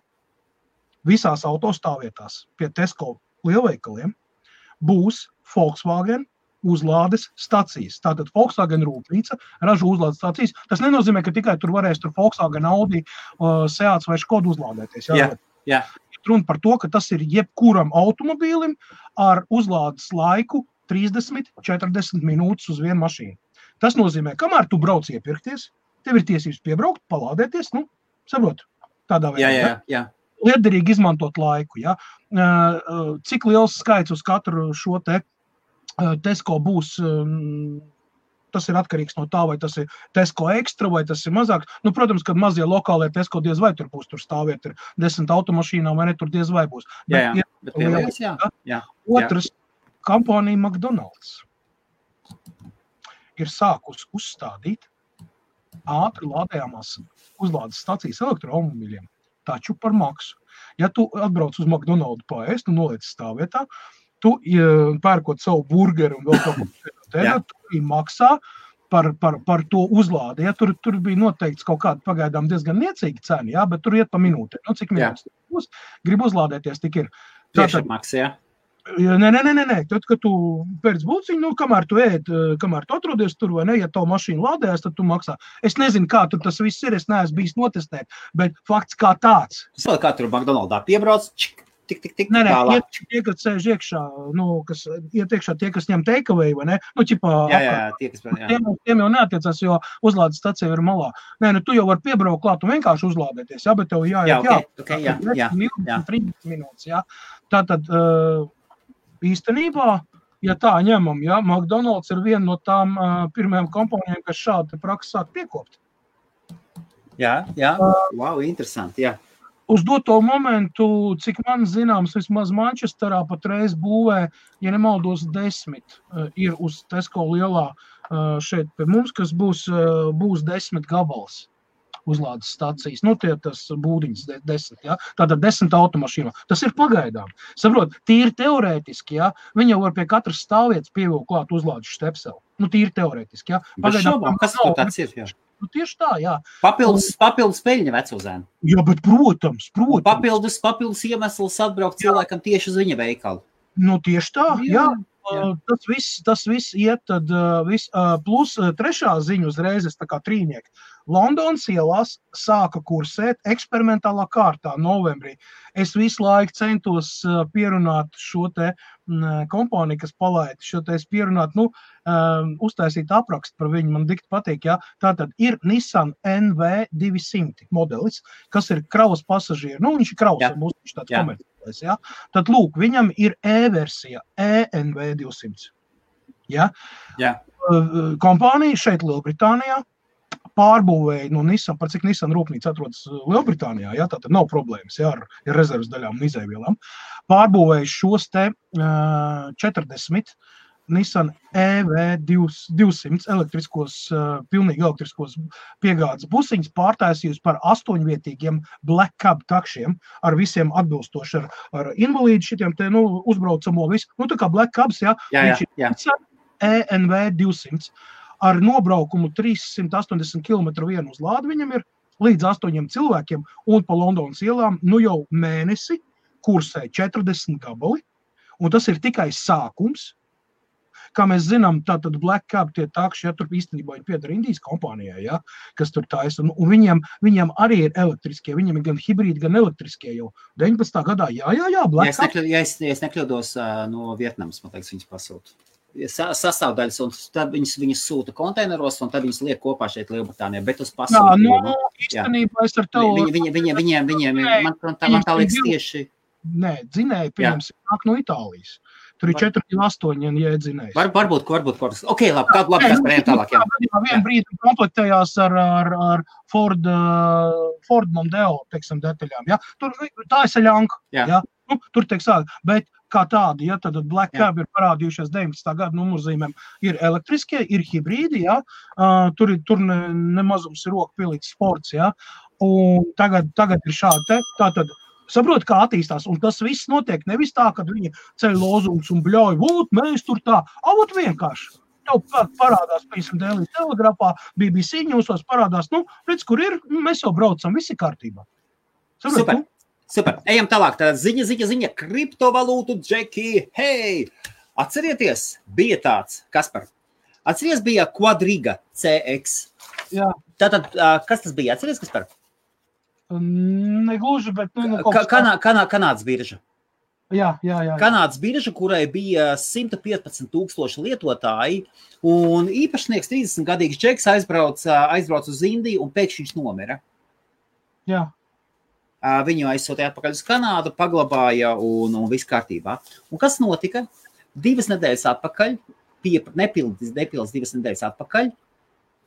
visās autostāvvietās pie Tesco lielveikaliem būs Volkswagen uzlādes stacijas. Tātad Volkswagen rūpnīca ražo uzlādes stacijas. Tas nenozīmē, ka tikai tur varēs tur Volkswagen, Audi, Seats vai Škoda uzlādēties. Jā. Runa par to, ka tas ir jebkuram automobīlim ar uzlādes laiku 30-40 minūtes uz vienu mašīnu. Tas nozīmē, kamēr tu brauc iepirkties, tev ir tiesības piebraukt, palādēties, saprot, tādā veidā. Jā. Liederīgi izmantot laiku, ja. Cik liels skaits uz katru šo te Tesco būs, tas ir atkarīgs no tā, vai tas ir Tesco ekstra, vai tas ir mazāk. Protams, kad mazie lokālie Tesco diez vai tur būs, tur stāviet ir 10 automašīnām, vai ne, tur diez vai būs. Jā. Otrs, kompānija McDonald's ir sākus uzstādīt ātri lādējamās uzlādes stacijas elektroautomobīļiem, taču par maksu. Ja tu atbrauc uz McDonald's paēst un noliec stāvvietā, tu pērkot savu burgeru un vēl kaut ko tu maksā par to uzlādi. Ja, tur bija noteikts kaut kāda pagaidām diezgan niecīga cena, ja, bet tur iet pa minūtē. Cik minūtes būs, grib uzlādēties, tik ir. Tieši maks, jā? Nē. Tad, kad tu pēc būciņu, kamēr tu ēd, kamēr tu atrodies tur vai ne, ja tavu mašīnu lādējās, tad tu maksā. Es nezinu, kā tur tas viss ir, es neesmu bijis notestēt, bet fakts kā tāds. Kā tur McDonald's piebrauc, tik, Nē, tie, kas sēž iekšā, kas iet iekšā tie, kas ņem takeaway, vai ne? Tiem jau neatiecās, jo uzlādes stacija ir malā. Nē, tu jau vari piebraukt klāt un vienkārši uzlādēties, bet tev jāiet, 30 minūtes, jā. Tātad, īstenībā, ja tā ņemam, McDonald's ir viena no tām pirmajām kompānijām, kas šādi praksi sāk piekopt. Jā, wow, interesanti, jā. Uz doto momentu, cik man zināms, vismaz Mančesterā patreiz būvē, ja nemaldos 10, ir uz Tesco lielā šeit pie mums, kas būs 10 gabals uzlādes stacijas. Tas būdiņas 10, ja? Tātad 10 automašīnā. Tas ir pagaidām. Saprot, tīri teorētiski, ja? Viņi jau var pie katras stāvvietas pievilkt klāt uzlādes štepseli. Tīri teorētiski, ja? Pagaidām, kas tur tāds ir, jā? Tieši tā, jā. Papildus peļņa vecuzēnu. Jā, bet protams. Papildus iemesls atbraukt cilvēkam tieši uz viņa veikalu. Tieši tā, jā. Tas viss iet, tad plus trešā ziņa uzreiz, tā kā trīnieki. Londonas ielās sāka kursēt eksperimentālā kārtā novembrī. Es visu laiku centos pierunāt šo te kompāniju, kas palaida šo te pierunāt, uztaisīt aprakstu par viņu, man dikti patīk, jā. Tātad ir Nissan NV200 modelis, kas ir kravas pasažieru, viņš ir kravas, būs viņš tāds komerciālais, jā. Tad lūk, viņam ir E-versija, ENV200, jā. Kompānija šeit Lielbritānijā pārbūvēja no Nissan, par cik Nissan rūpnīca atrodas Lielbritānijā, jā, tātad nav problēmas, jā, ar rezervas daļām un izēvielām. Pārbūvēja šos te 40 Nissan EV200 pilnīgi elektriskos piegādes busiņas pārtaisījusi par 8-vietīgiem Black Cab takšiem ar visiem atbilstoši ar invalīdu šitiem te, uzbraucamo visu. Tā kā Black Cabs, jā. ENV200 ar nobraukumu 380 km vienu uzlādi viņam ir līdz 8 cilvēkiem un pa Londonas ielām, jau mēnesi kursē 40 gabali, un tas ir tikai sākums. kā mēs zinām, tātad Black Cab tie takši, ja tur īstenībā ir pieder Indijas kompānijai, ja, kas tur taisa, un viņiem arī ir elektriskie, viņiem ir gan hibrīdi, gan elektriskie jau 19. gadā, jā, Black Cab. Ja es nekļūdos no Vietnamas, man liekas, viņas pasūta. Sastāvdaļas, un tad viņas sūta konteineros, un tad viņas liek kopā šeit Lielbritānijā, bet uz pasūtījumu. Īstenībā es ar tevu... Viņiem, man tā liekas tieši... Nē, dzinēji, pieņemsim, nāk no Itālijas. Tur ir 4,8, ja dzinējs. Varbūt. Ok, labi, kas par tālāk, jā. Vienu brīdi komplektējās ar Ford Mondeo, teiksim, detaļām, ja. Tur tā ir saļanka, ja. Nu, tur tiek sākt, bet kā tādi, ja, tad Black Cab ir parādījušies 19. gada numurzīmēm, ir elektriskie, ir hibrīdi, ja, tur nemazums ir rokpilīts sports, ja, un tagad ir šādi, tātad, saprot, kā attīstās, un tas viss notiek nevis tā, kad viņi ceļ lozungus un bļauj, mēs tur tā, avot vienkārši. Tev parādās, piemēram, Daily Telegrafā, BBC ņūsos parādās, redz, kur ir, mēs jau braucam, viss ir kārtībā. Saprot, Super. Ejam tālāk. Tā ziņa. Kriptovalūtu džeki. Hei! Atcerieties, bija tāds, Kaspar. Atceries, bija Quadriga CX. Jā. Tātad, kas tas bija? Atceries, Kaspar? Negluži, bet... Kanādas birža. Jā. Kanādas birža, kurai bija 115,000 lietotāji, un īpašnieks 30-gadīgs džeks aizbrauc uz Indiju, un pēkšņi viņš nomira. Jā. Viņu aizsūtīja atpakaļ uz Kanādu, paglabāja un viss kārtībā. Un kas notika? 2 nedēļas atpakaļ, nepildis 2 nedēļas atpakaļ,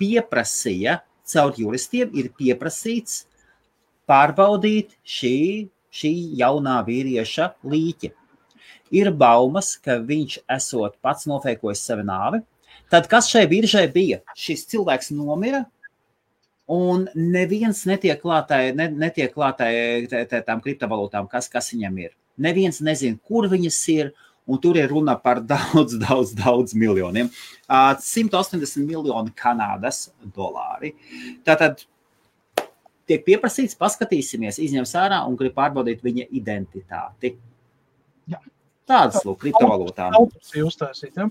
pieprasīja, caur juristiem ir pieprasīts pārbaudīt šī jaunā vīrieša līķi. Ir baumas, ka viņš esot pats nofeikojis savu nāvi. Tad kas šai biržai bija? Šis cilvēks nomira, un neviens netiek klātai tām kriptovalūtām, kas viņam ir. Neviens nezin, kur viņas ir, un tur ir runa par daudz miljoniem. 180 miljoni Kanādas dolāri. Tātad tiek pieprasīts, paskatīsimies, izņems ārā un grib pārbaudīt viņa identitāti. Jā. Tādas, lūk, kriptovalūtām. Autopsija uztaisīt, ja?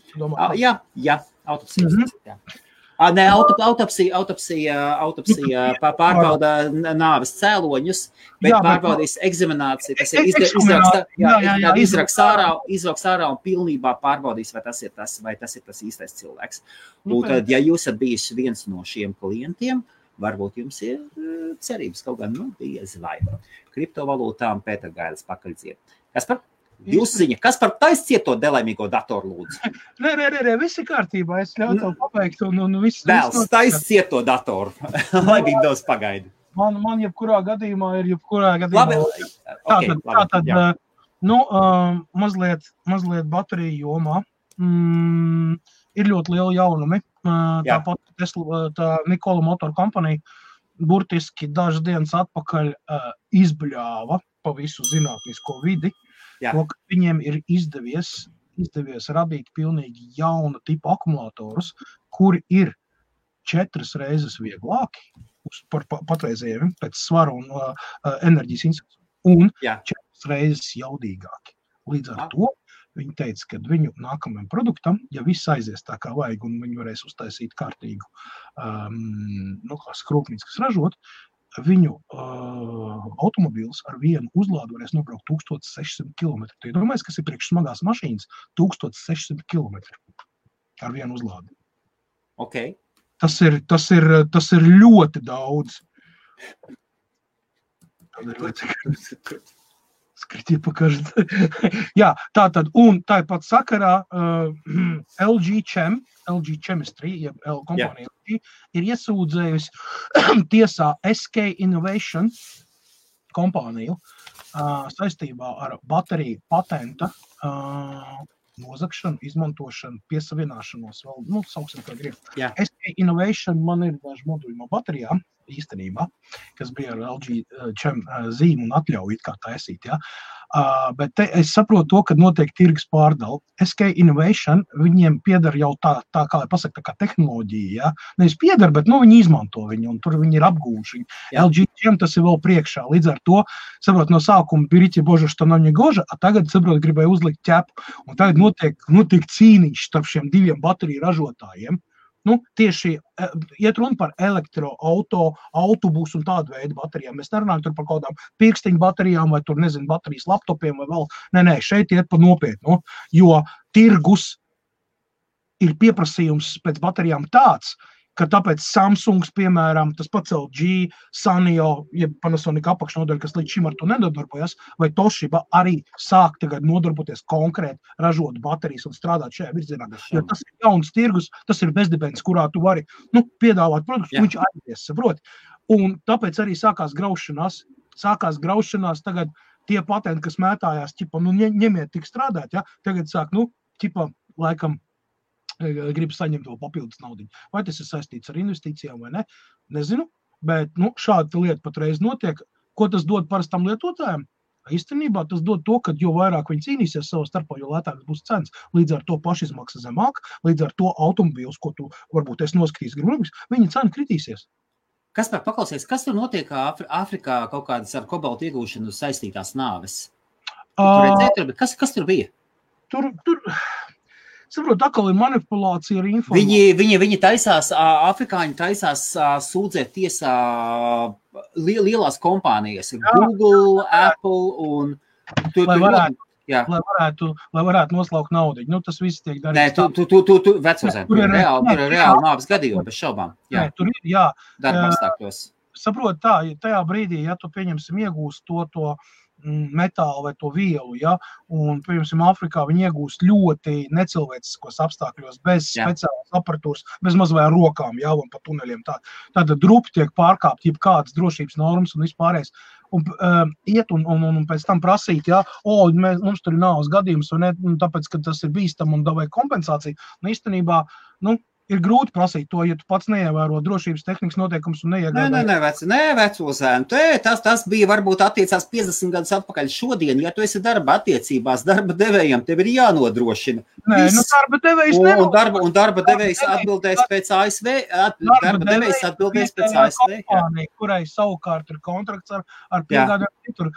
Jā, autopsija uztaisīt, jā. Nē, autopsija pārbauda nāves cēloņus, bet pārbaudīs eksamināciju, tas ir izraks ārā un pilnībā pārbaudīs, vai tas ir tas īstais cilvēks. Un tad, ja jūs esat bijis viens no šiem klientiem, varbūt jums ir cerības kaut gan, diez vai. Kriptovalūtām Pēter Gailis pakaļdziet. Kaspar? Jūs ziņa, kas par taiscieto delaimīgo datoru lūdzu? Nē, viss ir kārtībā, es ļauju tev pabeigt un viss. Vēls, taiscieto datoru, lai Windows pagaida. Man jebkurā gadījumā ir Labi, tātad, mazliet bateriju jomā, ir ļoti liela jaunumi, tāpat tā Nikola Motor Company burtiski dažas dienas atpakaļ izbļāva pa visu zinātnisko vidi, to, ka viņiem ir izdevies radīt pilnīgi jauna tipa akumulatorus, kuri ir 4 reizes vieglāki par patreizējiem pēc svaru un enerģijas institūciju, un 4 reizes jaudīgāki. Līdz ar to viņi teica, ka viņu nākamajam produktam, ja viss aizies tā kā vajag, un viņi varēs uztaisīt kārtīgu skrūpnīcu, kas ražot, viņu automobīls ar vienu uzlādu varēs nobraukt 1600 km. Tu iedomājies, kas ir priekš smagās mašīnas? 1600 km ar vienu uzlādi. Okay. Tas ir ļoti daudz. Skritie pakažat. Jā, tātad, un tāpat sakarā LG Chemistry, jeb kompānija LG, ir iesūdzējusi tiesā SK Innovation kompāniju saistībā ar bateriju patenta nozagšanu, izmantošanu, piesavināšanos vēl, sauksim kā grib. Jā. SK Innovation man ir daži moduļi no baterijām, īstenībā, kas bija ar LG zīmu un atļauju it kā taisīt, ja. Bet es saprotu to, ka notiek tirgus pārdala. SK Innovation, viņiem pieder jau tā kā pasaka, tā kā tehnoloģija, ja. Nevis pieder, bet, viņi izmanto viņu, un tur viņi ir apgūši. LG tas ir vēl priekšā. Līdz ar to, saprot, no sākuma берите, Bože, что нам не гоже, a tagad, saprot, gribēja uzlikt ķepu. Un tagad notiek cīniņš starp šiem diviem bateriju ražotājiem. Tieši iet runa par elektroauto, autobusu un tādu veidu baterijām. Mēs nerunājam tur par kaut kādām pirkstiņu baterijām vai tur, nezinu, baterijas laptopiem vai vēl. Nē, šeit iet par nopietnu, jo tirgus ir pieprasījums pēc baterijām tāds, ka tāpēc Samsungs, piemēram, tas pats LG, Sanyo, jeb Panasonic apakšnodaļa, kas līdz šim ar to nedarbojas, vai Toshiba arī sāk tagad nodarboties konkrēti ražot baterijas un strādāt šajā virzienā. Jo tas ir jauns tirgus, tas ir bezdibens, kurā tu vari piedāvāt produktus, viņš aizies, saproti. Un tāpēc arī sākās graušanās. Tagad tie patenti, kas mētājās, ņemiet tik strādāt, ja? Tagad sāk, laikam, grib saņemt vēl papildus naudiņu. Vai tas ir saistīts ar investīcijām vai ne? Nezinu, bet šāda lieta patreiz notiek. Ko tas dod parastam lietotājiem? Īstenībā tas dod to, ka jo vairāk viņi cīnīsies savā starpā, jo lētāks būs cenas. Līdz ar to pašizmaksa zemāk, līdz ar to automobīls, ko tu varbūt es noskatīs gribams, viņa cena kritīsies. Kaspar, paklausies, kas tur notiek Āfrikā kaut kādas ar kobaltu iegūšanu saistītās nāves? Kas tur bija? Tur saprot, atkal ir manipulācija ar informāciju. Viņi taisās, afrikāņi taisās sūdzēt tiesā lielās kompānijas, Google, Apple un... Lai varētu noslaukt naudu. Tas viss tiek darīts. Nē, tu vecozēm, tur ir reāli nāves gadījumi, bez šaubām. Nē, tur ir, darba apstākļos. Saprot tajā brīdī, ja tu pieņemsim iegūst to metālu vai to vielu, ja, un, piemēram, Āfrikā viņi iegūst ļoti necilvēciskos apstākļos, bez speciālas aparatūras, bez mazvai rokām, ja, un pa tuneļiem. Tāda drupi tiek pārkāpt, jebkādas drošības normas un vispārējais. Un iet un pēc tam prasīt, ja, mums tur ir nāves gadījums, un tāpēc, ka tas ir bīstam un davai kompensāciju. Īstenībā, ir grūti prasīt to, ja tu pats neievēro drošības tehnikas noteikums un neiegādāji. Nē, vecozēn. Tas bija varbūt attiecās 50 gadus atpakaļ šodien. Ja tu esi darba attiecībās, darba devējiem, tev ir jānodrošina. Nē, darba devējs nenodrošina. Un darba devējs atbildēs pēc ASV. Darba devējs atbildēs pēc ASV. Kompānija, kurai savukārt ir kontrakts ar piegādājumu.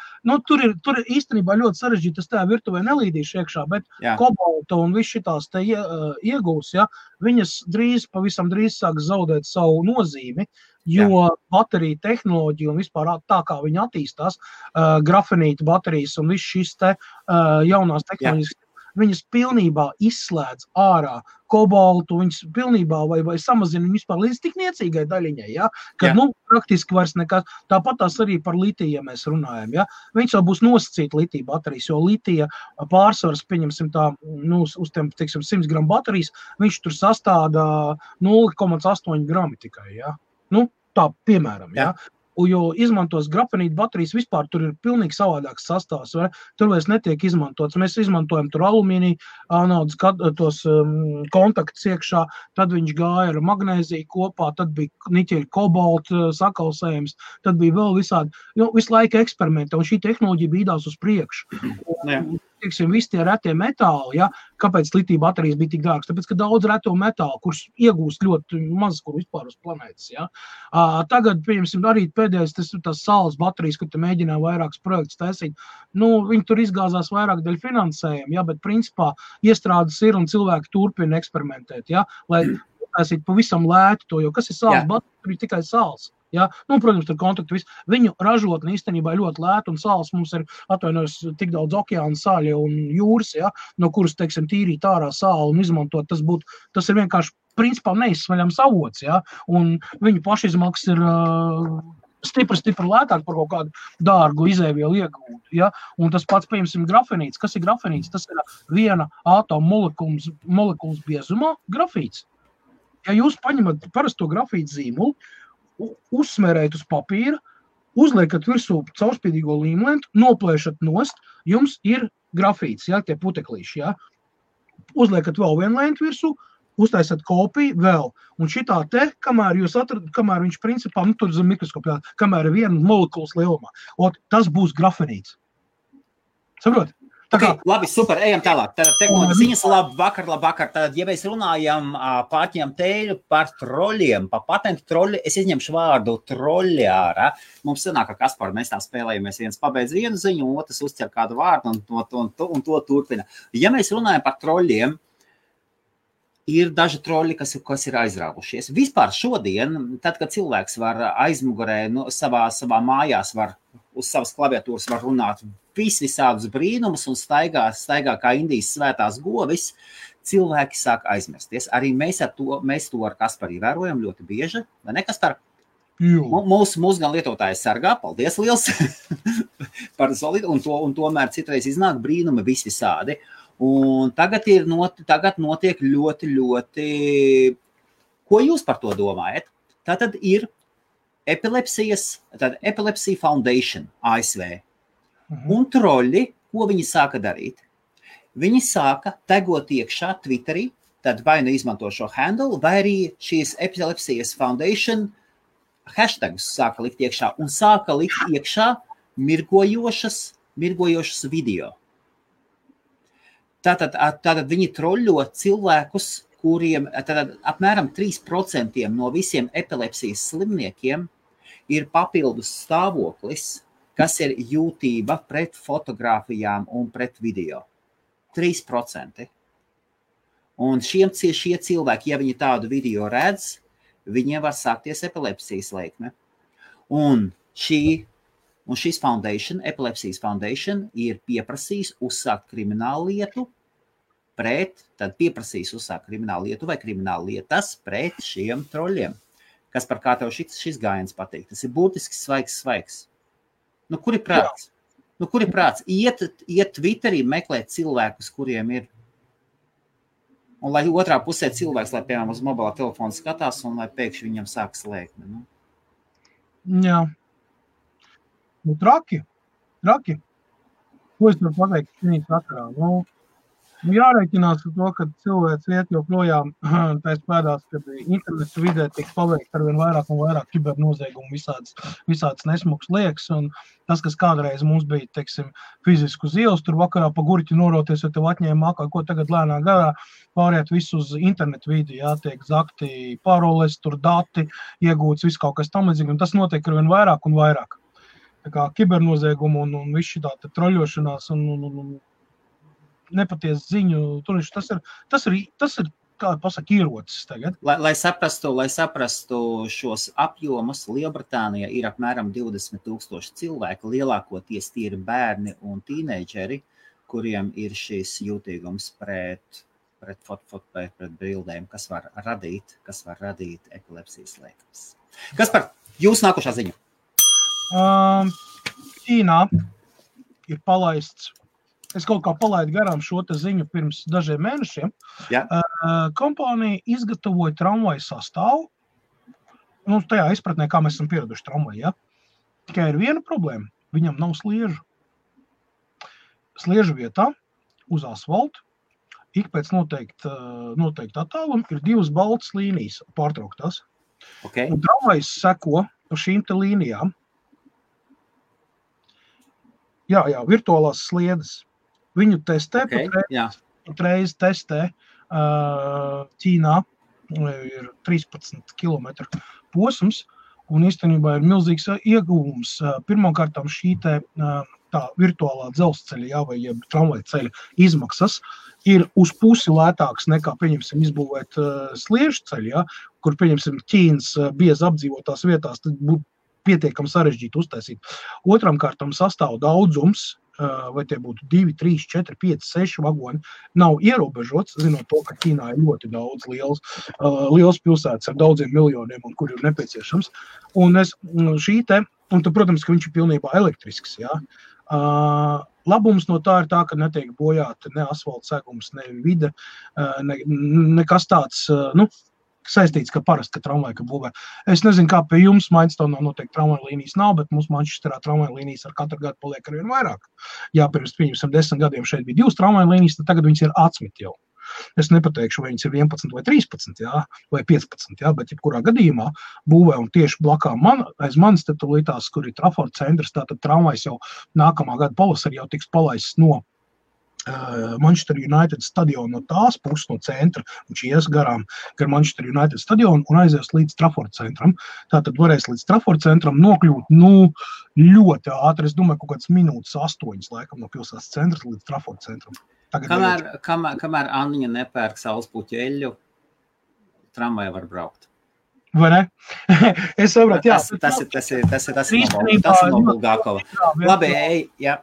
Tur ir īstenībā ļoti sarežģīti, tas tajā virtuvē nelīdīšu iekšā, bet kobalta un viss šitās te iegūs, ja, viņas pavisam drīz sāks zaudēt savu nozīmi, jo baterija tehnoloģija un vispār tā, kā viņi attīstās, grafenīta baterijas un viss šis te jaunās tehnoloģijas, viņas pilnībā izslēdz ārā kobaltu, viņas pilnībā vai samazina viņu vispār līdz tik niecīgai daļiņai, ja? Kad, praktiski vairs nekas. Tāpat tās arī par litiju, ja mēs runājam, ja? Viņas jau būs nosacīta litija baterijas, jo litija pārsvars, pieņemsim tā, uz tiem, 100 gramu baterijas, viņš tur sastāda 0,8 grami tikai, ja? Tā, piemēram, ja? Jo izmantos grafenīta baterijas, vispār tur ir pilnīgi savādāks sastāvs, vai? Tur vairs netiek izmantots. Mēs izmantojam tur alumīniju, anodas, tos kontaktus iekšā, tad viņš gāja ar magnēziju kopā, tad bija niķeļa kobalta sakalsējums, tad bija vēl visādi, visu laiku eksperimenti, un šī tehnoloģija bīdās uz priekšu. Visi tie retie metāli, ja, kāpēc litija baterijas bija tik dārgas? Tāpēc, ka daudz reto metālu, kurus iegūst ļoti maz, kur vispār uz planētas. Ja. Tagad, pieņemsim, arī pēdējais tas saules baterijas, kur te mēģināja vairākas projektus taisīt. Viņi tur izgāzās vairāk dēļ finansējuma, ja, bet principā iestrādes ir un cilvēki turpina eksperimentēt, ja, lai taisīt pavisam lēti to, jo kas ir saules baterija, tur ir tikai saules. Ja? Protams, tur kontaktu viss. Viņu ražotne īstenībā ļoti lēta un sāls mums ir atvainojas tik daudz okeāna sāļa un jūras, ja? No kuras, teiksim, tīrīt ārā sāli un izmantot, tas ir vienkārši principā neizsvaļams avots, ja? Un viņu pašizmaksas ir stipri lētāk par kaut kādu dārgu izēvielu iegūtu, ja? Un tas pats, piemēram, grafenīts. Kas ir grafenīts? Tas ir viena ātoma molekulas biezumā grafīts. Ja jūs paņemat parasto grafītu zīmulu, uzsmērējat uz papīra, uzliekat virsū caurspīdīgo līmlentu, noplēšat nost, jums ir grafīts, ja, tie puteklīši, ja. Uzliekat vēl vienu lentu virsū, uztaisat kopiju vēl. Un šitā te, kamēr viņš principā, tur zem mikroskopā, kamēr ir viena molekulas lielumā, tas būs grafenīts. Saprot? Okay, labi, super, ejam tālāk. Tad ziņas labvakar. Tad, ja mēs runājam pārņem tēļu par troļiem, par patentu troļi, es izņemšu vārdu troļi ārā. Mums sanāk, ka Kaspar, mēs tā spēlējamies, viens pabeidz vienu ziņu, otrs uzķer kādu vārdu un to turpina. Ja mēs runājam par troļiem, ir daži troļi, kas ir aizrāvušies. Vispār šodien, tad, kad cilvēks var aizmugurē, savā mājās var, uz savas klaviatūras var runāt visādus brīnumus un staigā kā Indijas svētās govis, cilvēki sāk aizmirsties. Arī mēs to ar Kasparu vērojam ļoti bieži, vai ne, Kaspar? Mūsu gan lietotāji sargā, paldies liels par solidu, un tomēr citreiz iznāk brīnumi visvisādi. Un tagad notiek ļoti, ko jūs par to domājat? Tātad ir Epilepsy Foundation ASV. Un troļi, ko viņi sāka darīt? Viņi sāka tagot iekšā Twitterī, tad vai nu izmanto šo handle, vai arī šīs Epilepsy Foundation hashtagus sāka likt iekšā un sāka likt iekšā mirgojošas video. Tātad viņi troļļo cilvēkus, kuriem apmēram 3% no visiem epilepsijas slimniekiem ir papildus stāvoklis, kas ir jūtība pret fotogrāfijām un pret video. 3%. Un šie cilvēki, ja viņi tādu video redz, viņiem var sākties epilepsijas lēkme. Un šis foundation, Epilepsijas Foundation, ir pieprasījis uzsākt kriminālu lietu vai kriminālu lietas pret šiem troļiem. Kas par kā tev šis gājiens patīk? Tas ir būtiski svaigs. Nu, kur ir prāts? Iet Twitterī meklēt cilvēkus, kuriem ir. Un lai otrā pusē cilvēks, lai piemēram uz mobilā telefona skatās un lai pēkšņi viņam sākas lēkme. Nu? Jā. Nu, traki. Ko es varu pateikt šī sakarā? Jārēķinās ar to, ka cilvēks iet joprojām tais pēdās, kad internetu vidē tiek paveikt arvien vairāk un vairāk kibernoziegumu visāds nesmuks liekas. Un tas, kas kādreiz mums bija, teiksim, fiziski uz ielas, tur vakarā pa gurķi noroties, jo tev atņēma mākā, ko tagad lēnā garā pāriet visu uz internetu vidi, tiek zakti paroles, tur dati, iegūts viss kaut kas tam līdzīgi, un tas notiek arvien vairāk un vairāk. Tā kā kibernoziegumu un viss šitā troļošanās un nepatiesa ziņu, tas ir, kā pasaka, ierocis tagad. Lai saprastu šos apjomus, Lielbritānijā ir apmēram 20,000 cilvēku, lielākoties tie ir bērni un tīneidžeri, kuriem ir šis jūtīgums pret bildēm, kas var radīt epilepsijas lēkmes. Kas par jūs nākošā ziņa? Ķīnā ir palaists. Es kaut kā palaidu garām šo te ziņu pirms dažiem mēnešiem. Ja. Kompānija izgatavoja tramvaju sastāvu. Nu, tajā izpratnē, kā mēs esam pieraduši tramvaju, ja? Tikai ir viena problēma. Viņam nav sliežu. Sliežu vietā uz asfaltu ik pēc noteikti attāluma ir 2 baltas līnijas pārtrauktās. Okay. Un tramvajs seko pa šīm te līnijām. Jā, virtuālās sliedes. Viņu testē, patreiz testē Ķīnā, ir 13 kilometru posms, un īstenībā ir milzīgs ieguvums. Pirmkārtām šī tā virtuālā dzelzceļa, vai tramvaja ceļa izmaksas ir uz pusi lētāks nekā, pieņemsim, izbūvēt sliežu ceļu, kur, pieņemsim, Ķīnas biezi apdzīvotās vietās, tad būtu pietiekami sarežģīti uztaisīt. Otram kārtam sastāv daudzums, vai tie būtu 2, 3, 4, 5, 6 vagoni, nav ierobežots, zinot to, ka Ķīnā ir ļoti daudz liels pilsētas ar daudziem miljoniem, un kur ir nepieciešams. Un tad, protams, ka viņš ir pilnībā elektrisks, jā. Labums no tā ir tā, ka netiek bojāta ne asfalta segums, ne vide, nekas tāds, saistīts, ka parasti, ka tramvaja būvē. Es nezinu, kā pie jums Mainstonā noteikti tramvaja līnijas nav, bet mums Manchesterā tramvaja līnijas ar katru gadu paliek arvien vairāk. Jā, pirms 10 gadiem šeit bija 2 tramvaja līnijas, tad tagad viņas ir 11 jau. Es nepateikšu, vai viņas ir 11 vai 13, jā, vai 15, jā, bet jebkurā gadījumā būvē un tieši blakā aiz manis te tulītās, kur ir Trafford centrs, tātad tramvajs jau nākamā gada pavasarī jau tiks palaists no Manchester United stadionu no tās puses, no centra, viņš ies gar Manchester United stadionu un aizies līdz Trafford centram. Tātad varēs līdz Trafford centram nokļūt, ļoti ātri, es domāju, kaut kāds minūtes 8, laikam, no pilsētas centras līdz Trafford centram. Kamēr Anniņa nepērk saulespuķu eļļu, tramvajā var braukt. Vai ne? Es sapratu, jā. Tas ir no Bulgākova. Labi, jā.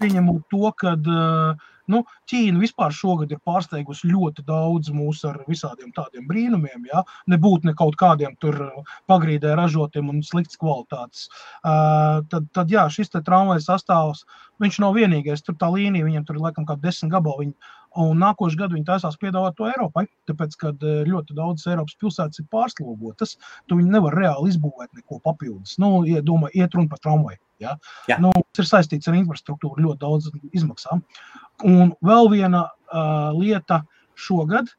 Pieņemot to, kad Ķīna vispār šogad ir pārsteigusi ļoti daudz mūs ar visādiem tādiem brīnumiem, ja? Nebūt ne kaut kādiem tur pagrīdē ražotiem un slikts kvalitātes. Tad jā, šis te tramvaja sastāvs, viņš nav vienīgais, tur tā līnija, viņam tur ir laikam kā 10 gabali, un nākošu gadu viņi taisās piedāvāt to Eiropai, tāpēc, kad ļoti daudz Eiropas pilsētas ir pārslogotas, tu viņi nevar reāli izbūvēt neko papildus. Iet runa par tramvaju. Ja? Tas ir saistīts ar infrastruktūru ļoti daudz izmaksām. Un vēl viena lieta šogad,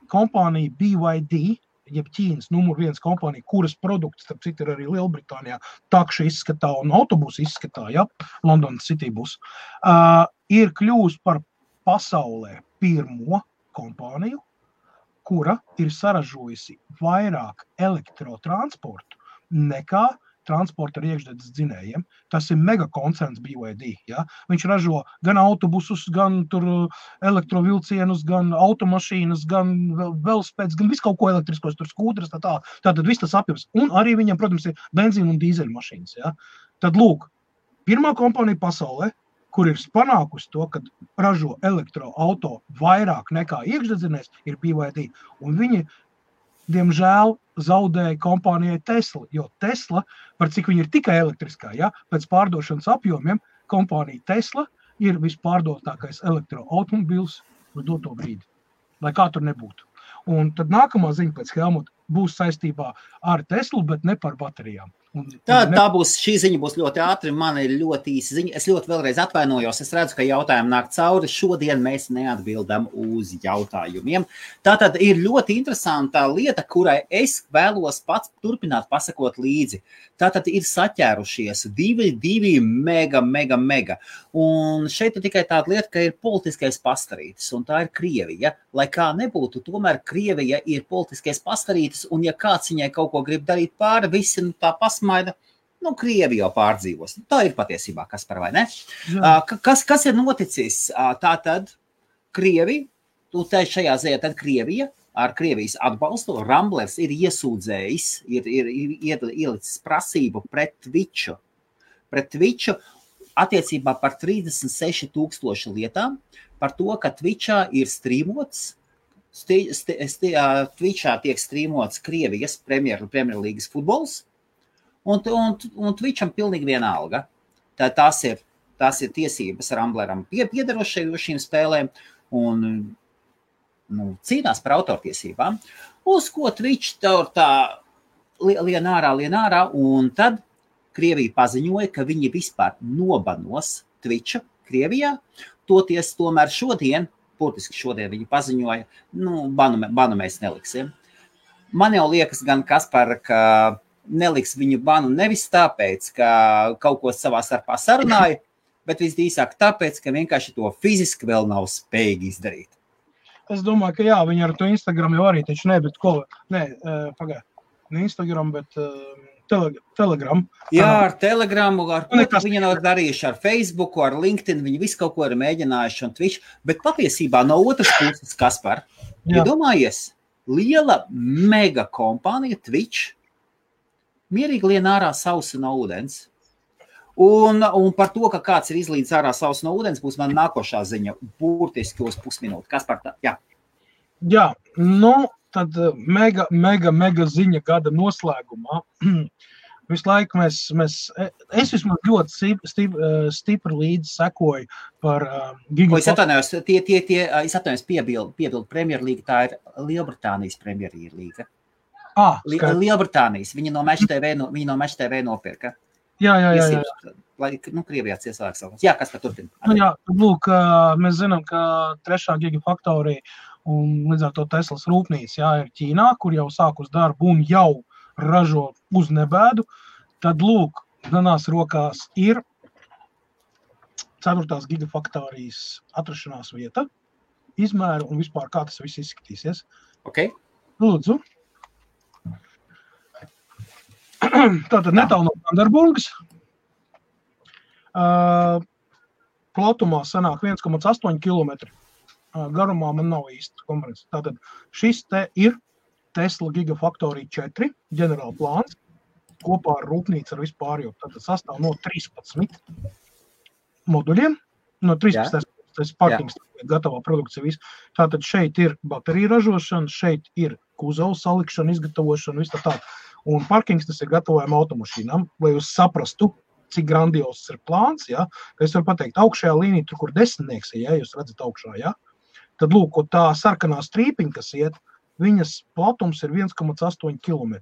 kompānija BYD, jeb Ķīnas numur 1 kompānija, kuras produkts, starp citu, ir arī Lielbritānijā, takšu izskatā un autobusu izskatā, ja? London City bus, ir kļūst par pasaulē pirmo kompāniju, kura ir saražojusi vairāk elektrotransportu nekā transporta ar iekšzemes dzinējiem. Tas ir megakoncerns BYD. Ja? Viņš ražo gan autobusus, gan tur elektrovilcienus, gan automašīnas, gan velospēdas, gan visu kaut ko elektriskos, tur skūtras, tātad viss tas apjoms. Un arī viņam, protams, ir benzīna un dīzeļu mašīnas. Ja? Tad lūk, pirmā kompānija pasaulē, kur ir panākusi to, kad ražo elektroauto vairāk nekā iekšdedzinējs, ir BYD. Un viņi, diemžēl, zaudēja kompānijai Tesla, jo Tesla, par cik viņi ir tikai elektriskā, ja, pēc pārdošanas apjomiem, kompānija Tesla ir vispārdotākais elektroautomobils uz doto brīdi, lai kā tur nebūtu. Un tad nākamā ziņa pēc Helmuta būs saistībā ar Teslu, bet ne par baterijām. Šī ziņa būs ļoti ātri, man ir ļoti īsa ziņa. Es ļoti vēlreiz atvainojos, es redzu, ka jautājumi nāk cauri. Šodien mēs neatbildam uz jautājumiem. Tātad ir ļoti interesanta lieta, kurai es vēlos pats turpināt pasakot līdzi. Tātad ir saķērušies divi mega. Un šeit ir tikai tāda lieta, ka ir politiskais pastarītis, un tā ir Krievija. Lai kā nebūtu, tomēr Krievija ir politiskais pastarītis, un ja kāds viņai kaut ko grib darīt pāri, visi tā pasmaida, Krievija jau pārdzīvos. Tā ir patiesībā, Kaspar, vai ne? Kas ir noticis? Tātad Krievija, šajā ziņā tad Krievija, ar Krievijas atbalstu, Ramblers ir iesūdzējis, ir ielicis prasību pret Twitchu. Attiecībā par 36,000 lietām, par to, ka Twitchā ir strīmots, Twitchā tiek strīmots Krievijas Premjerlīgas futbols, un Twitcham pilnīgi vienalga. Tās ir tiesības Rambleram piederošajiem spēlēm un cīnās par autortiesībām, uz ko Twitch tā lien ārā, un tad Krievija paziņoja, ka viņi vispār nobanos Twitchu Krievijā, toties tomēr burtiski šodien viņi paziņoja, banu mēs neliksim. Man jau liekas gan, Kaspar, ka neliks viņu banu nevis tāpēc, ka kaut ko savā starpā sarunāja, bet visdrīzāk tāpēc, ka vienkārši to fiziski vēl nav spējīgi izdarīt. Es domāju, ka jā, viņi ar to Instagram jau arī, taču ne Instagram, bet Telegram. Jā, ar Telegramu, ar ko viņi nav darījuši, ar Facebooku, ar LinkedIn, viņi visu kaut ko ir mēģinājuši un Twitch, bet patiesībā no otras puses, Kaspar, iedomājies, liela mega kompānija Twitch, mierīgi lien ārā sausu no ūdens. Un par to, ka kāds ir izlīdz ārā sausu no ūdens, būs man nākošā ziņa, burtiski uz pusminūti. Kaspar, jā. Jā, tad mega ziņa gada noslēgumā. Visu laiku es vismaz ļoti stipri līdzi sekoju par Es atvainojos, piebildu Premjerlīga, tā ir Lielbritānijas Premjerlīga. Lielbritānijas, viņi no Match TV nopirka. Jā. Lai, Krievijā ciesāks savu. Jā, kas par turpina? Jā, lūk, mēs zinām, ka 3. gigafaktorija un līdz ar to Teslas rūpnīca, ir Ķīnā, kur jau sākus darbu un jau ražo uz nebēdu. Tad, lūk, manās rokās ir 4. gigafaktorijas atrašanās vieta, izmēru un vispār kā tas viss izskatīsies. Ok. Lūdzu. Tātad netālu no Vanderburgas. Platumā sanāk 1,8 km. Garumā man nav īsti konferences. Tātad šis te ir Tesla Gigafactory 4 ģenerāla plāns kopā ar rūpnīcu ar vispārējo. Tātad sastāv no 13 moduļiem, no 13. Tas parkings, gatavā produkcija viss. Tātad šeit ir baterija ražošana, šeit ir kuzava salikšana, izgatavošana, viss tā. Un parkings tas ir gatavojama automašīnām, lai jūs saprastu, cik grandios ir plāns, Es varu pateikt, augšējā līnija, tur, kur 10, jūs redzat augšā, Tad, lūk, tā sarkanā strīpiņa, kas iet, viņas platums ir 1,8 km.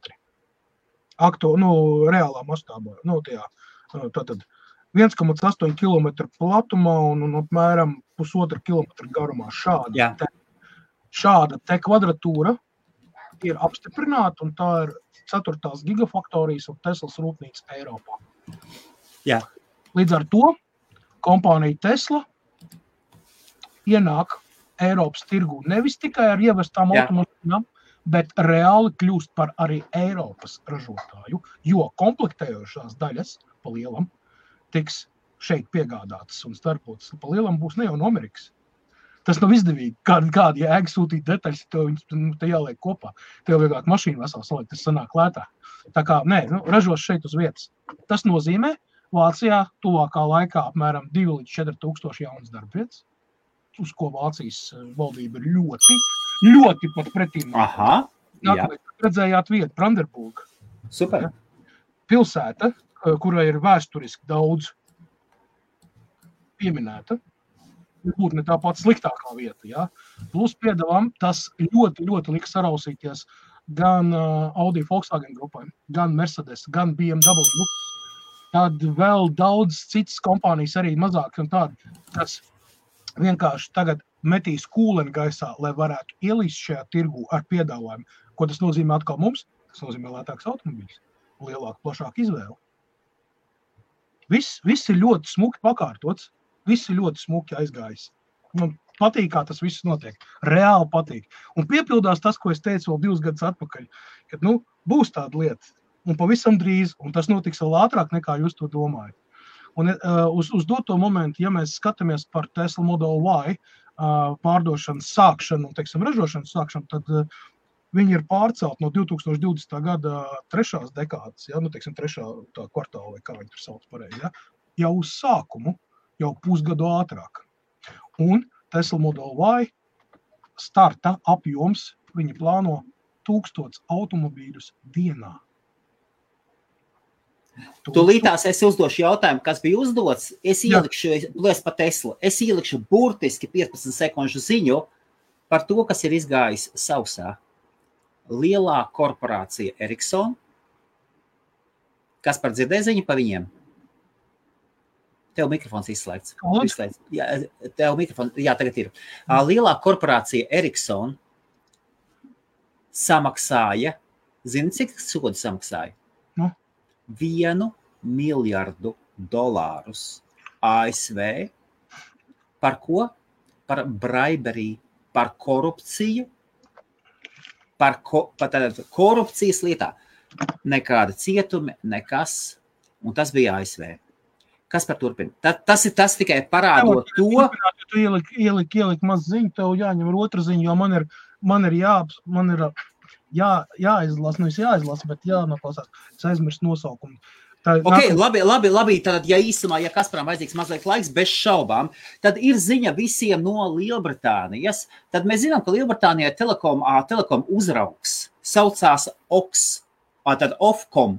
Reālā mastābā. Tātad 1,8 km platumā un apmēram 1,5 km garumā. Šāda te kvadratūra ir apstiprināta, un tā ir 4. gigafaktorijas un Teslas rūpnīca Eiropā. Jā. Līdz ar to kompānija Tesla ienāk Eiropas tirgū nevis tikai ar ievestām automašīnām, bet reāli kļūst par arī Eiropas ražotāju, jo komplektējošās daļas pa lielam tiks šeit piegādātas un starpotas. Pa lielam būs ne jau no Amerikas. Tas nav izdevīgi. Kāda jēga sūtīt detaļas, te jāliek kopā. Tev vieglāk mašīnu veselu salikt, tas sanāk lētāk. Tā kā, ražos šeit uz vietas. Tas nozīmē, Vācijā tuvākā laikā apmēram 2 līdz 4 tūkstoši jaunas darbvietas, uz ko Vācijas valdība ir ļoti pat pretīm. Aha, Nākamais, redzējāt vietu, Brandenburga. Super. Pilsēta, kurai ir vēsturiski daudz pieminēta, būtu ne tā pati sliktākā vieta, Plus piedevām, tas ļoti lika sarausīties gan Audi Volkswagen grupai, gan Mercedes, gan BMW. Tad vēl daudz citas kompānijas arī mazāk un tādi, kas vienkārši tagad metīs kūleni gaisā, lai varētu ielīst šajā tirgu ar piedāvājumu. Ko tas nozīmē atkal mums? Tas nozīmē lētāks automobīļs, lielāka, plašāka izvēle. Viss ir ļoti smuki pakārtots, viss ir ļoti smuki aizgājis. Man patīk, kā tas viss notiek. Reāli patīk. Un piepildās tas, ko es teicu vēl 2 gadus atpakaļ, kad, būs tāda lieta. Un pavisam drīz, un tas notiks vēl ātrāk, nekā jūs to domājat. Un uz doto momentu, ja mēs skatāmies par Tesla Model Y pārdošanas sākšanu un, ražošanas sākšanu, tad viņi ir pārcelt no 2020. gada 3. dekādas, 3. kvartāla, vai kā viņi tur sauc pareizi, jau uz sākumu, jau pusgadu ātrāk. Un Tesla Model Y starta apjoms, viņi plāno 1000 automobīļus dienā. Tūlītās es uzdošu jautājumu, kas bija uzdots. Es ielikšu burtiski 15 sekundžu ziņu par to, kas ir izgājis sausā. Lielā korporācija Ericsson. Kas par dzirdēja ziņu pa viņiem? Tev mikrofons izslēgts. Tev mikrofons, tagad ir. Lielā korporācija Ericsson samaksāja, zini, cik sodu samaksāja? $1 miljardu ASV. Par ko? Par bribery, par korupciju, par korupcijas lietā. Nekāda cietumi, nekas, un tas bija ASV. Kas par turpina? Tas tikai parādot to. Tu ieliki maz ziņu, tev jāņem ar otru ziņu, jo man ir jāizlasa, bet jānoklausās. Es aizmirstu nosaukumu. Labi, tad, ja īsumā, ja Kasparam vajadzīgs mazliet laiks, bez šaubām, tad ir ziņa visiem no Lielbritānijas. Tad mēs zinām, ka Lielbritānijā telekom uzraugs saucās Ofcom.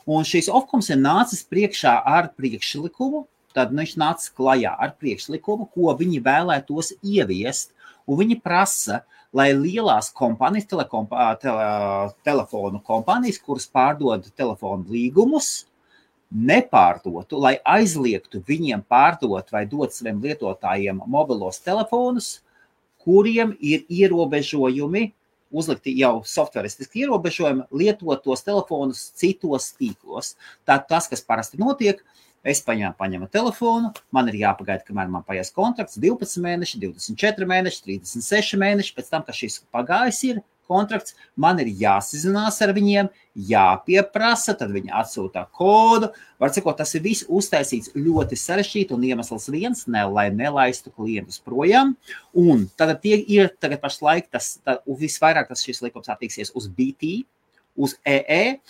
Un šīs Ofcoms ir nācis priekšā ar priekšlikumu, tad viņš nāca klajā ar priekšlikumu, ko viņi vēlētos ieviest, un viņi prasa, lai lielās kompānijas, telefonu kompānijas, kuras pārdod telefonu līgumus, nepārdotu, lai aizliegtu viņiem pārdot vai dot saviem lietotājiem mobilos telefonus, kuriem ir ierobežojumi, uzlikti jau softwaristiski ierobežojumi, lietot tos telefonus citos tīklos. Tātad tas, kas parasti notiek, es paņemu telefonu, man ir jāpagaida, kamēr man paies kontrakts 12 mēneši, 24 mēneši, 36 mēneši, pēc tam, ka šis pagājis ir kontrakts, man ir jāsazinās ar viņiem, jāpieprasa, tad viņi atsūtā kodu. Var sakot, tas ir viss uztaisīts ļoti sarežģīti un iemesls viens, lai nelaistu klientus projām. Un tad ir tagad pašlaik visvairāk šis likums attieksies uz BT, uz EE,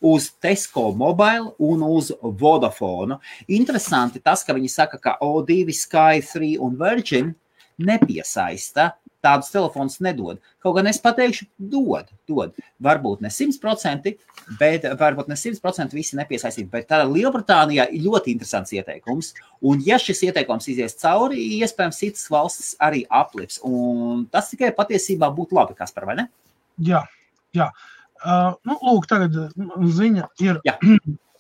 uz Tesco Mobile un uz Vodafone. Interesanti tas, ka viņi saka, ka O2, Sky, 3 un Virgin nepiesaista, tādus telefonus nedod. Kaut gan es pateikšu, dod. Varbūt ne 100%, bet varbūt ne 100% visi nepiesaistīt. Bet tā Lielbritānijā ir ļoti interesants ieteikums. Un ja šis ieteikums izies cauri, iespējams citas valstis arī aplips. Un tas tikai patiesībā būtu labi, Kaspar, vai ne? Jā. Lūk, tagad ziņa ir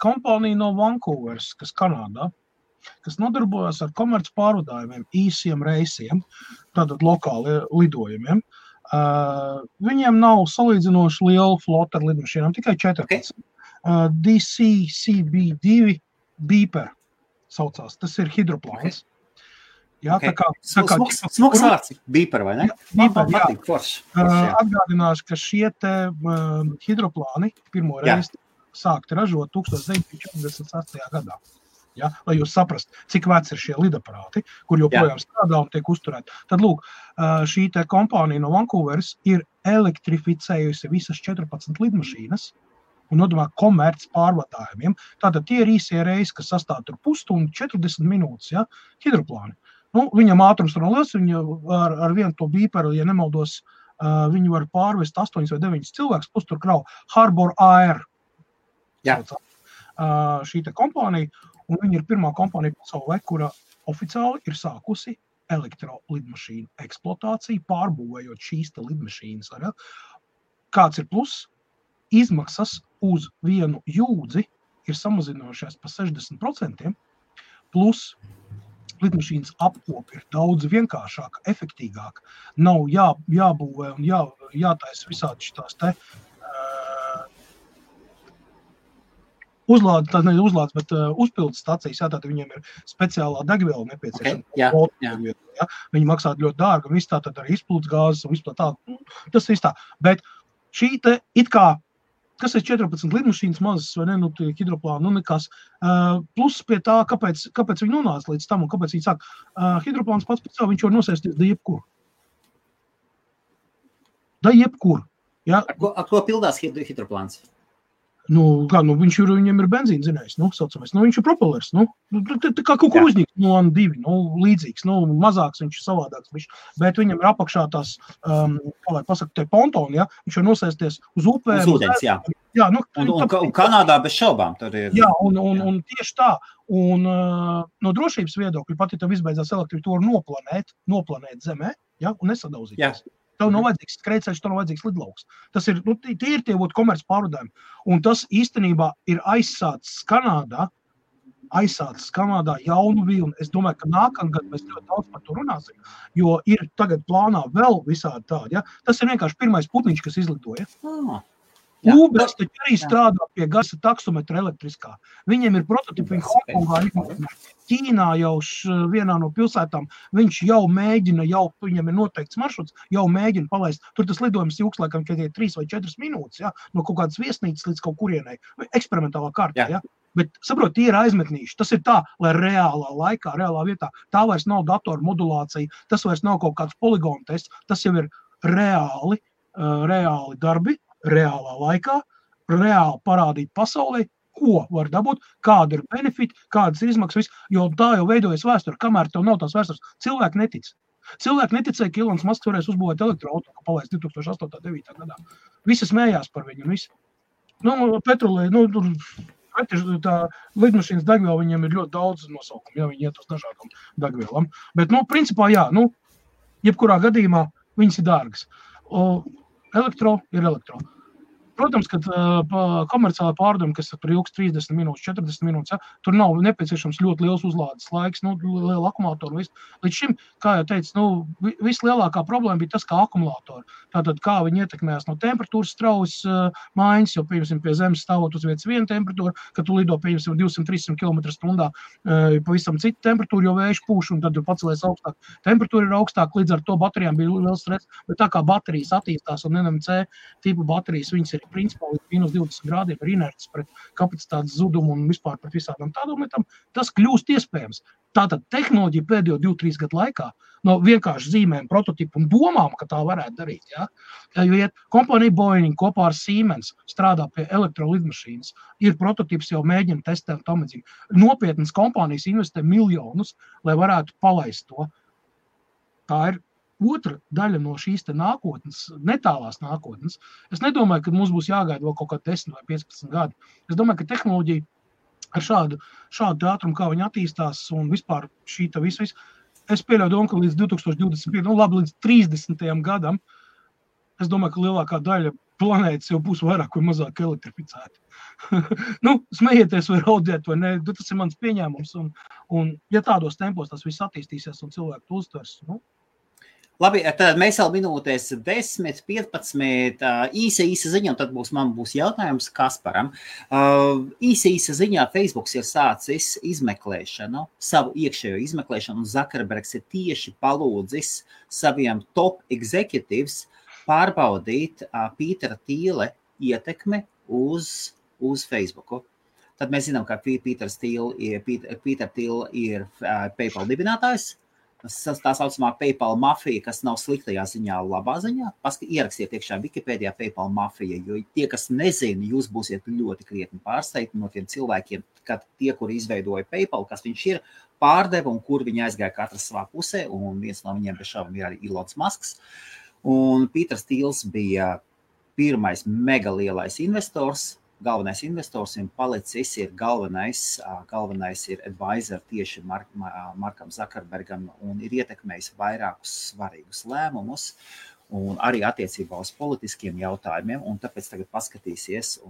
kompānija no Vancouveras, kas Kanādā, kas nodarbojas ar komerc pārvadājumiem, īsiem reisiem, tātad lokāli lidojumiem. Viņiem nav salīdzinoši liela flota ar lidmašīnām, tikai 14. DCCB2 Beeper saucās, tas ir hidroplāns. Jā, Smuks vārds, Beeper, vai ne? Beeper, atgādināšu, ka šie te hidroplāni pirmo reizi sākti ražot 1948. gadā. Ja, lai jūs saprast, cik veci ir šie lidaparāti, kur joprojām strādā un tiek uzturēti. Tad, lūk, šī te kompānija no Vancouveras ir elektrificējusi visas 14 lidmašīnas un nodomā komerc pārvadājumiem. Tātad tie ir īsie reisi, kas sastāv tur pusstundu, 40 minūtes, ja, hidroplāni. Viņam ātrums tur liels, viņa ar vienu to Beeperu, ja nemaldos, viņi var pārvest 8 vai 9 cilvēkus, plus tur krau Harbour Air. Šī te kompānija. Un viņa ir pirmā kompānija pasaulē, kura oficiāli ir sākusi elektrolidmašīnu eksploatāciju, pārbūvējot šīs te lidmašīnas. Kāds ir plus? Izmaksas uz vienu jūdzi ir samazinājušās pa 60%, plus lidmašīnas apkopi ir daudz vienkāršāka, efektīgāka. Nav jābūvē un jātaisa visādi šitās te uzlādes, bet uzpildes stacijas, tātad viņiem ir speciālā degviela nepieciešama. Viņi maksā ļoti dārgi, un viss tātad arī izplūdes gāzes un viss tā. Tas ir tā. Bet šī te it kā, kas ir 14 lidmašīnas mazas, vai ne, hidroplāni, nekas. Plus pie tā, kāpēc viņi nonāca līdz tam un kāpēc viņi sāk. Hidroplāns pats pēc savu, viņš var nosēsties da jebkur. Ja? Ar ko pildās hidroplāns? Viņam ir benzīna zinājums, saucamais. Viņš ir propellers, tā kā kaut kur uzņīgs, N2, līdzīgs, mazāks, viņš ir savādāks, bet viņam ir apakšā tās, kā lai pasaka, te pontoni, ja, viņš var nosēsties uz upēm. Uz ūdens, jā. Un Kanādā bez šaubām tur ir. Jā, un tieši tā, un no drošības viedokļa, pat ja tev izbeidzās elektrību, to var noplanēt zemē, ja, un nesadauzīties. Tev nav vajadzīgs skrējceļš, tev nav vajadzīgs lidlauks. Tas ir, tie ir tie komerc pārvadājumi. Un tas īstenībā ir aizsācis Kanādā jaunu vilni. Es domāju, ka nākamgad mēs ļoti daudz par to runāsim, jo ir tagad plānā vēl visādi tādi. Ja? Tas ir vienkārši pirmais putniņš, kas izlidoja. Uber taču arī strādā pie gaisa taksometra elektriskā. Viņiem ir prototipi Hongkongā, Ķīnā jau vienā no pilsētām. Viņš jau mēģina, viņam ir noteikts maršruts, jau mēģina palaist. Tur tas lidojums ilgs, laikam, ka 3 vai 4 minūtes, ja? No kaut kādas viesnīcas līdz kaut kurienai. Eksperimentālā kārtā, ja? Bet, saprot, tie ir aizmetnīši. Tas ir tā, lai reālā laikā, reālā vietā, tā vairs nav datoru modulācija, tas vairs nav kaut kāds poligonu tests, tas jau ir reāli darbi, reālā laikā, reāli parādīt pasaulē, ko var dabūt, kāda ir benefiti, kādas ir izmaksas, jo tā jau veidojas vēsture, kamēr tev nav tās vēstures. Cilvēki netic. Cilvēki neticēja, ka Ilons Masks varēs uzbūvēt elektroauto, ka palaist 2008. gadā. Visi smējās par viņu un visi. Petrolē, tā lidmašīnas degviela viņiem ir ļoti daudz nosaukumu, ja viņi iet uz dažādām degvielām. Bet, principā, jā, jebkurā gadījumā viņas ir dārgas. Elektro ir elektro. Protams, ka komerciālā pārdoma, kas tur ilgs 30 minūtes, 40 minūtes, tur nav nepieciešams ļoti liels uzlādes laiks, liela akumulātora. Līdz šim, kā jau teicu, vislielākā problēma bija tas, kā akumulātori. Tātad, kā viņi ietekmējās no temperatūras straujas maiņas, jo, piemēram, pie zemes stāvot uz vietas viena temperatūra, kad tu lido, piemēram, 200-300 km/h, pavisam cita temperatūra, jo vējš pūš, un tad pacelies augstāk. Temperatūra ir augstāk, līdz ar to baterijām bija liels stress, bet tā kā baterijas attīstās un NMC tipu baterijas, viņas ir principā līdz -20 grādiem ir inerts pret kapacitātes zudumu un vispār pret visādām tādām lietām, tas kļūst iespējams. Tātad tehnoloģija pēdējo 2-3 gadu laikā no vienkārši zīmēm, prototipu un domām, ka tā varētu darīt. Ja? Jo kompānija Boeing kopā ar Siemens strādā pie elektrolidmašīnas, ir prototips jau mēģina testēt tamadzīgi. Nopietnas kompānijas investē miljonus, lai varētu palaist to. Tā ir otra daļa no šīs te nākotnes, netālās nākotnes. Es nedomāju, ka mums būs jāgaida vēl kaut kā 10 vai 15 gadi. Es domāju, ka tehnoloģija ar šādu ātrumu, kā viņi attīstās un vispār šī ta visu. Es pieļauju domu, ka līdz 2025, līdz 30. gadam, es domāju, ka lielākā daļa planētas jau būs vairāk vai mazāk elektrificēta. Smējieties vai raudiet vai ne, tas ir mans pieņēmums. Un ja tādos tempos tas viss attīstīsies un cilvēku to uztvers, Labi, tad mēs vēl minūtēs 10, 15, īsa ziņa, un tad man būs jautājums Kasparam. Īsa ziņā Facebooks ir sācis izmeklēšanu, savu iekšējo izmeklēšanu, un Zuckerbergs ir tieši palūdzis saviem top executives pārbaudīt Pītera Tīle ietekmi uz Facebooku. Tad mēs zinām, ka Pīter Tīle ir PayPal dibinātājs. Tā saucamā PayPal mafija, kas nav sliktajā ziņā, labā ziņā. Ierakstiet iekšā Wikipēdijā PayPal mafija, jo tie, kas nezina, jūs būsiet ļoti krietni pārsteigti no tiem cilvēkiem, kad tie, kuri izveidoja PayPal, kas viņš ir, pārdeva un kur viņi aizgāja katrs savā pusē, un viens no viņiem bez šaubām ir arī Elons Musks. Un Pīters Tīls bija pirmais mega lielais investors, galvenais investors, un palicis ir galvenais ir advisor tieši Markam Zuckerbergam un ir ietekmējis vairākus svarīgus lēmumus un arī attiecībā uz politiskiem jautājumiem, un tāpēc tagad paskatīsies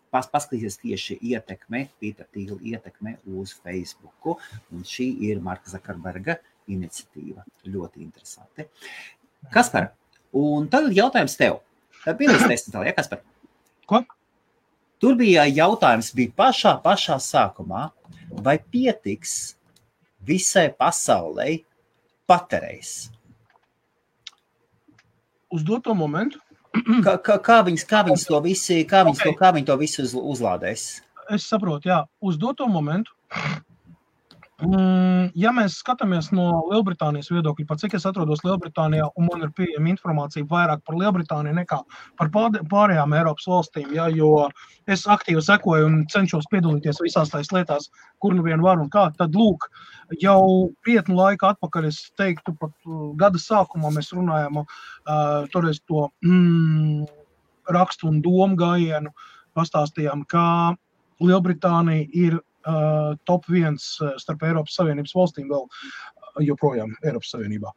paskatīsies tieši Pītera Tīla ietekme uz Facebooku, un šī ir Marka Zuckerberga iniciatīva. Ļoti interesanti. Kaspar, un tagad jautājums tev. Tā bija līdz 10. Ja, Kaspar? Ko? Tur bija jautājums, pašā sākumā, vai pietiks visai pasaulei paterējs? Uz doto momentu? Kā viņi to visu uzlādēs? Es saprotu, jā. Uz doto momentu. Ja mēs skatāmies no Lielbritānijas viedokļa, par cik es atrodos Lielbritānijā, un man ir pieejama informācija vairāk par Lielbritāniju nekā par pārējām Eiropas valstīm, ja, jo es aktīvi sekoju un cenšos piedalīties visās tais lietās, kur nu vien var un kā, tad lūk, jau krietnu laiku atpakaļ, es teiktu, pat gada sākumā mēs runājām toreiz to rakstu un domu gājienu, pastāstījām, kā Lielbritānija ir top 1 starp Eiropas Savienības valstīm vēl joprojām Eiropas Savienībā,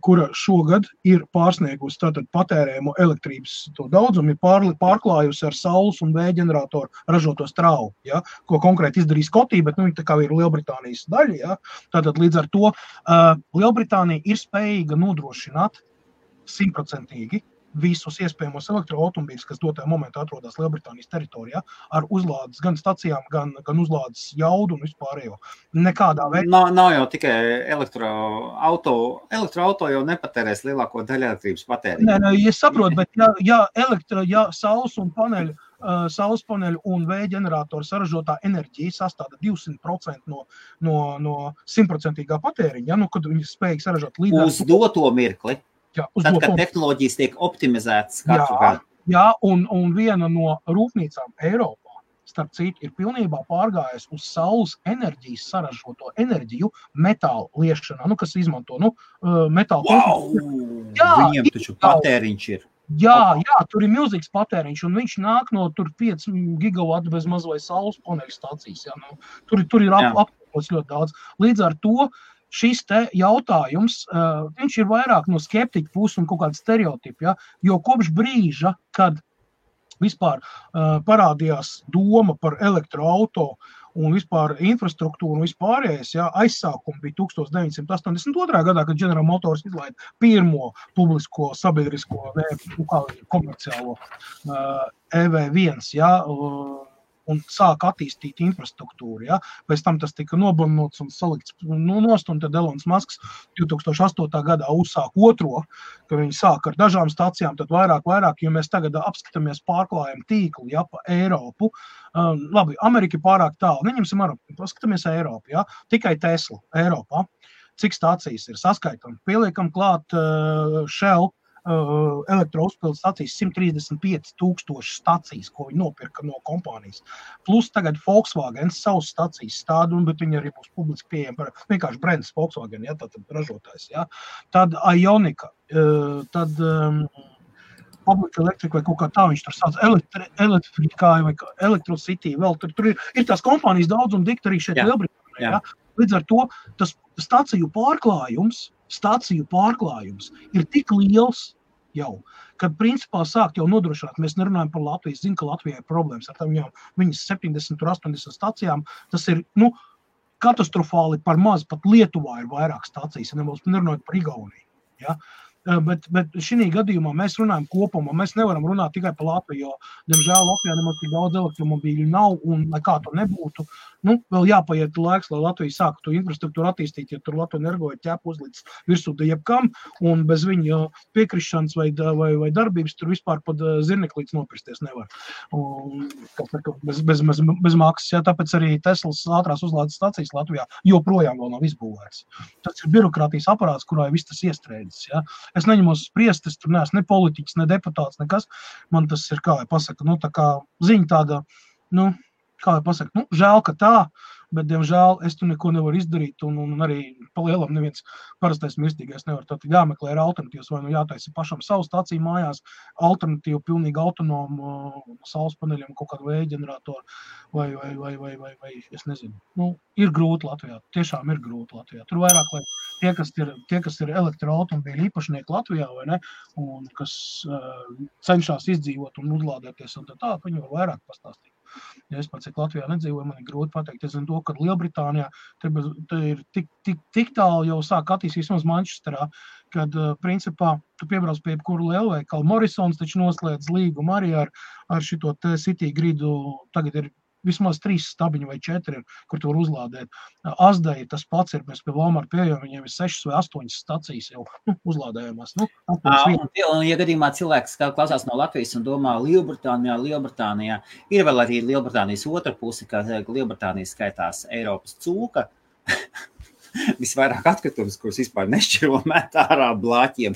kura šogad ir pārsniegusi tātad patērējumu elektrības to daudzumu, ir pārklājusi ar saules un vēja ģeneratoru ražoto strauju, ja, ko konkrēti izdarīs Skotija, bet viņi tā kā ir Lielbritānijas daļa, ja, tātad līdz ar to Lielbritānija ir spējīga nodrošināt 100% visus iespējamos elektroautomobīļus, kas dotajā momentā atrodas Lielbritānijas teritorijā, ar uzlādes gan stacijām, gan uzlādes jaudu un vispārējo. Nekādā veidā. Nav jau tikai elektroauto jau nepatērēs lielāko daļu elektrības patēriņu. Nē, es saprotu, bet ja saules paneļu un vēja ģeneratoru saražotā enerģija sastāda 200% no 100% patēriņa, kad viņi spēj saražot līdz uz doto mirkli. Tad, kad tehnoloģijas tiek optimizētas katru gadu. Jā, un viena no rūpnīcām Eiropā, starp citu, ir pilnībā pārgājis uz saules enerģijas saražoto enerģiju metāla liešanā, kas izmanto metāla. Wow! Viņiem taču patēriņš ir. Jā, tur ir milzīgs patēriņš, un viņš nāk no tur 5 gigavatu bez maz vai saules paneļu stācijas. Jā, tur ir apkopots ļoti daudz. Līdz ar to šis te jautājums, viņš ir vairāk no skeptiķa puses un kaut kāda stereotipa, ja? Jo kopš brīža, kad vispār parādījās doma par elektroauto un vispār infrastruktūru un vispārējais, ja, aizsākumi bija 1982. Gadā, kad General Motors izlaida pirmo publisko sabiedrisko komerciālo EV1, ja, un sāka attīstīt infrastruktūru. Ja. Pēc tam tas tika nobanots un salikts nost, un tad Elons Musks 2008. Gadā uzsāk otro, ka viņi sāk ar dažām stacijām, tad vairāk, jo mēs tagad apskatāmies pārklājumu tīklu, ja, pa Eiropu. Labi, Amerika ir pārāk tālu, neņemsim Eiropu, paskatāmies Eiropu, ja, tikai Tesla Eiropā. Cik stācijas ir saskaitam? Pieliekam klāt Shell, elektrouzpildes stacijas 135,000 stacijas, ko viņi nopirka no kompānijas. Plus tagad Volkswagen savas stacijas stāda, bet viņi arī būs publiski pieejami, vienkārši brands Volkswagen, ja, tad ražotājs. Ja. Tad Ionika, tad Public Electric vai kaut kā tā viņš tur sauc, Electrify vai Electrocity, vēl tur ir tās kompānijas daudz un dikti arī šeit Lielbritānijā. Ja. Līdz ar to tas staciju pārklājums ir tik liels jau, kad principā sākt jau nodrošināt, mēs nerunājam par Latviju, zinu, ka Latvijai ir problēmas ar viņas 70 un 80 stacijām, tas ir, katastrofāli par maz, pat Lietuvā ir vairāk stacijas, ja nerunājot par Igauniju, ja. Bet šī gadījumā mēs runājam kopumā, mēs nevaram runāt tikai par Latviju, jo, diemžēl, Latvijā nemaz tik daudz elektromobīļu nav, un lai kā to nebūtu, vēl jāpaiet laiks, lai Latvija sāka to infrastruktūru attīstīt, ja tur Latvija energo ir ķēpu uzlīdz virsū jebkam, un bez viņa piekrišanas vai darbības tur vispār pat zirneklīdz nopirsties nevar. Un, bez maksas, ja, tāpēc arī Teslas ātrās uzlādes stacijas Latvijā joprojām vēl nav izbūvēts. Tas ir birokrātijas aparāts, kurā viss tas iestrēdzis, ja. Es neņemos spriest, es tur neesmu ne politiķis, ne deputāts, nekas. Man tas ir, kā lai pasaka, tā kā ziņa tāda, kā lai pasaka, žēl, ka tā, bet, diemžēl, es tur neko nevaru izdarīt, un arī pa lielam neviens parastais mirstīgais nevar. Tad jāmeklē ir alternatīvas, vai jātaisa pašam savu staciju mājās, alternatīvu, pilnīgi autonomu saules paneļiem, kaut kādu vēja ģeneratoru, vai, es nezinu. Ir grūti Latvijā, tiešām ir grūti Latvijā. Tur vairāk, lai tie, kas ir elektroautomobīļu īpašnieki Latvijā, vai ne, un kas cenšas izdzīvot un uzlādēties un tā, viņi var vairāk pastāstīt. Ja es pats, cik Latvijā nedzīvoju, man ir grūti pateikt. Es zinu to, ka Lielbritānijā te ir tik tālu jau sāk attīstīt vismaz Manchesterā, kad, principā, tu piebrauc pie jebkuru lielveikalu. Morrisons taču noslēdz līgumu arī ar šito te City gridu, tagad ir vismaz 3 stabiņi vai 4, kur tu var uzlādēt. Asdai tas pats ir, mēs pie Walmart pieejam, viņiem ir 6 vai 8 stacijas jau uzlādējumās. Un, ja gadījumā cilvēks klausās no Latvijas un domā Lielbritānijā, ir vēl arī Lielbritānijas otra puse, kā Lielbritānija skaitās Eiropas cūka, visvairāk atkritumus, kurus vispār nešķiro met ārā blāķiem.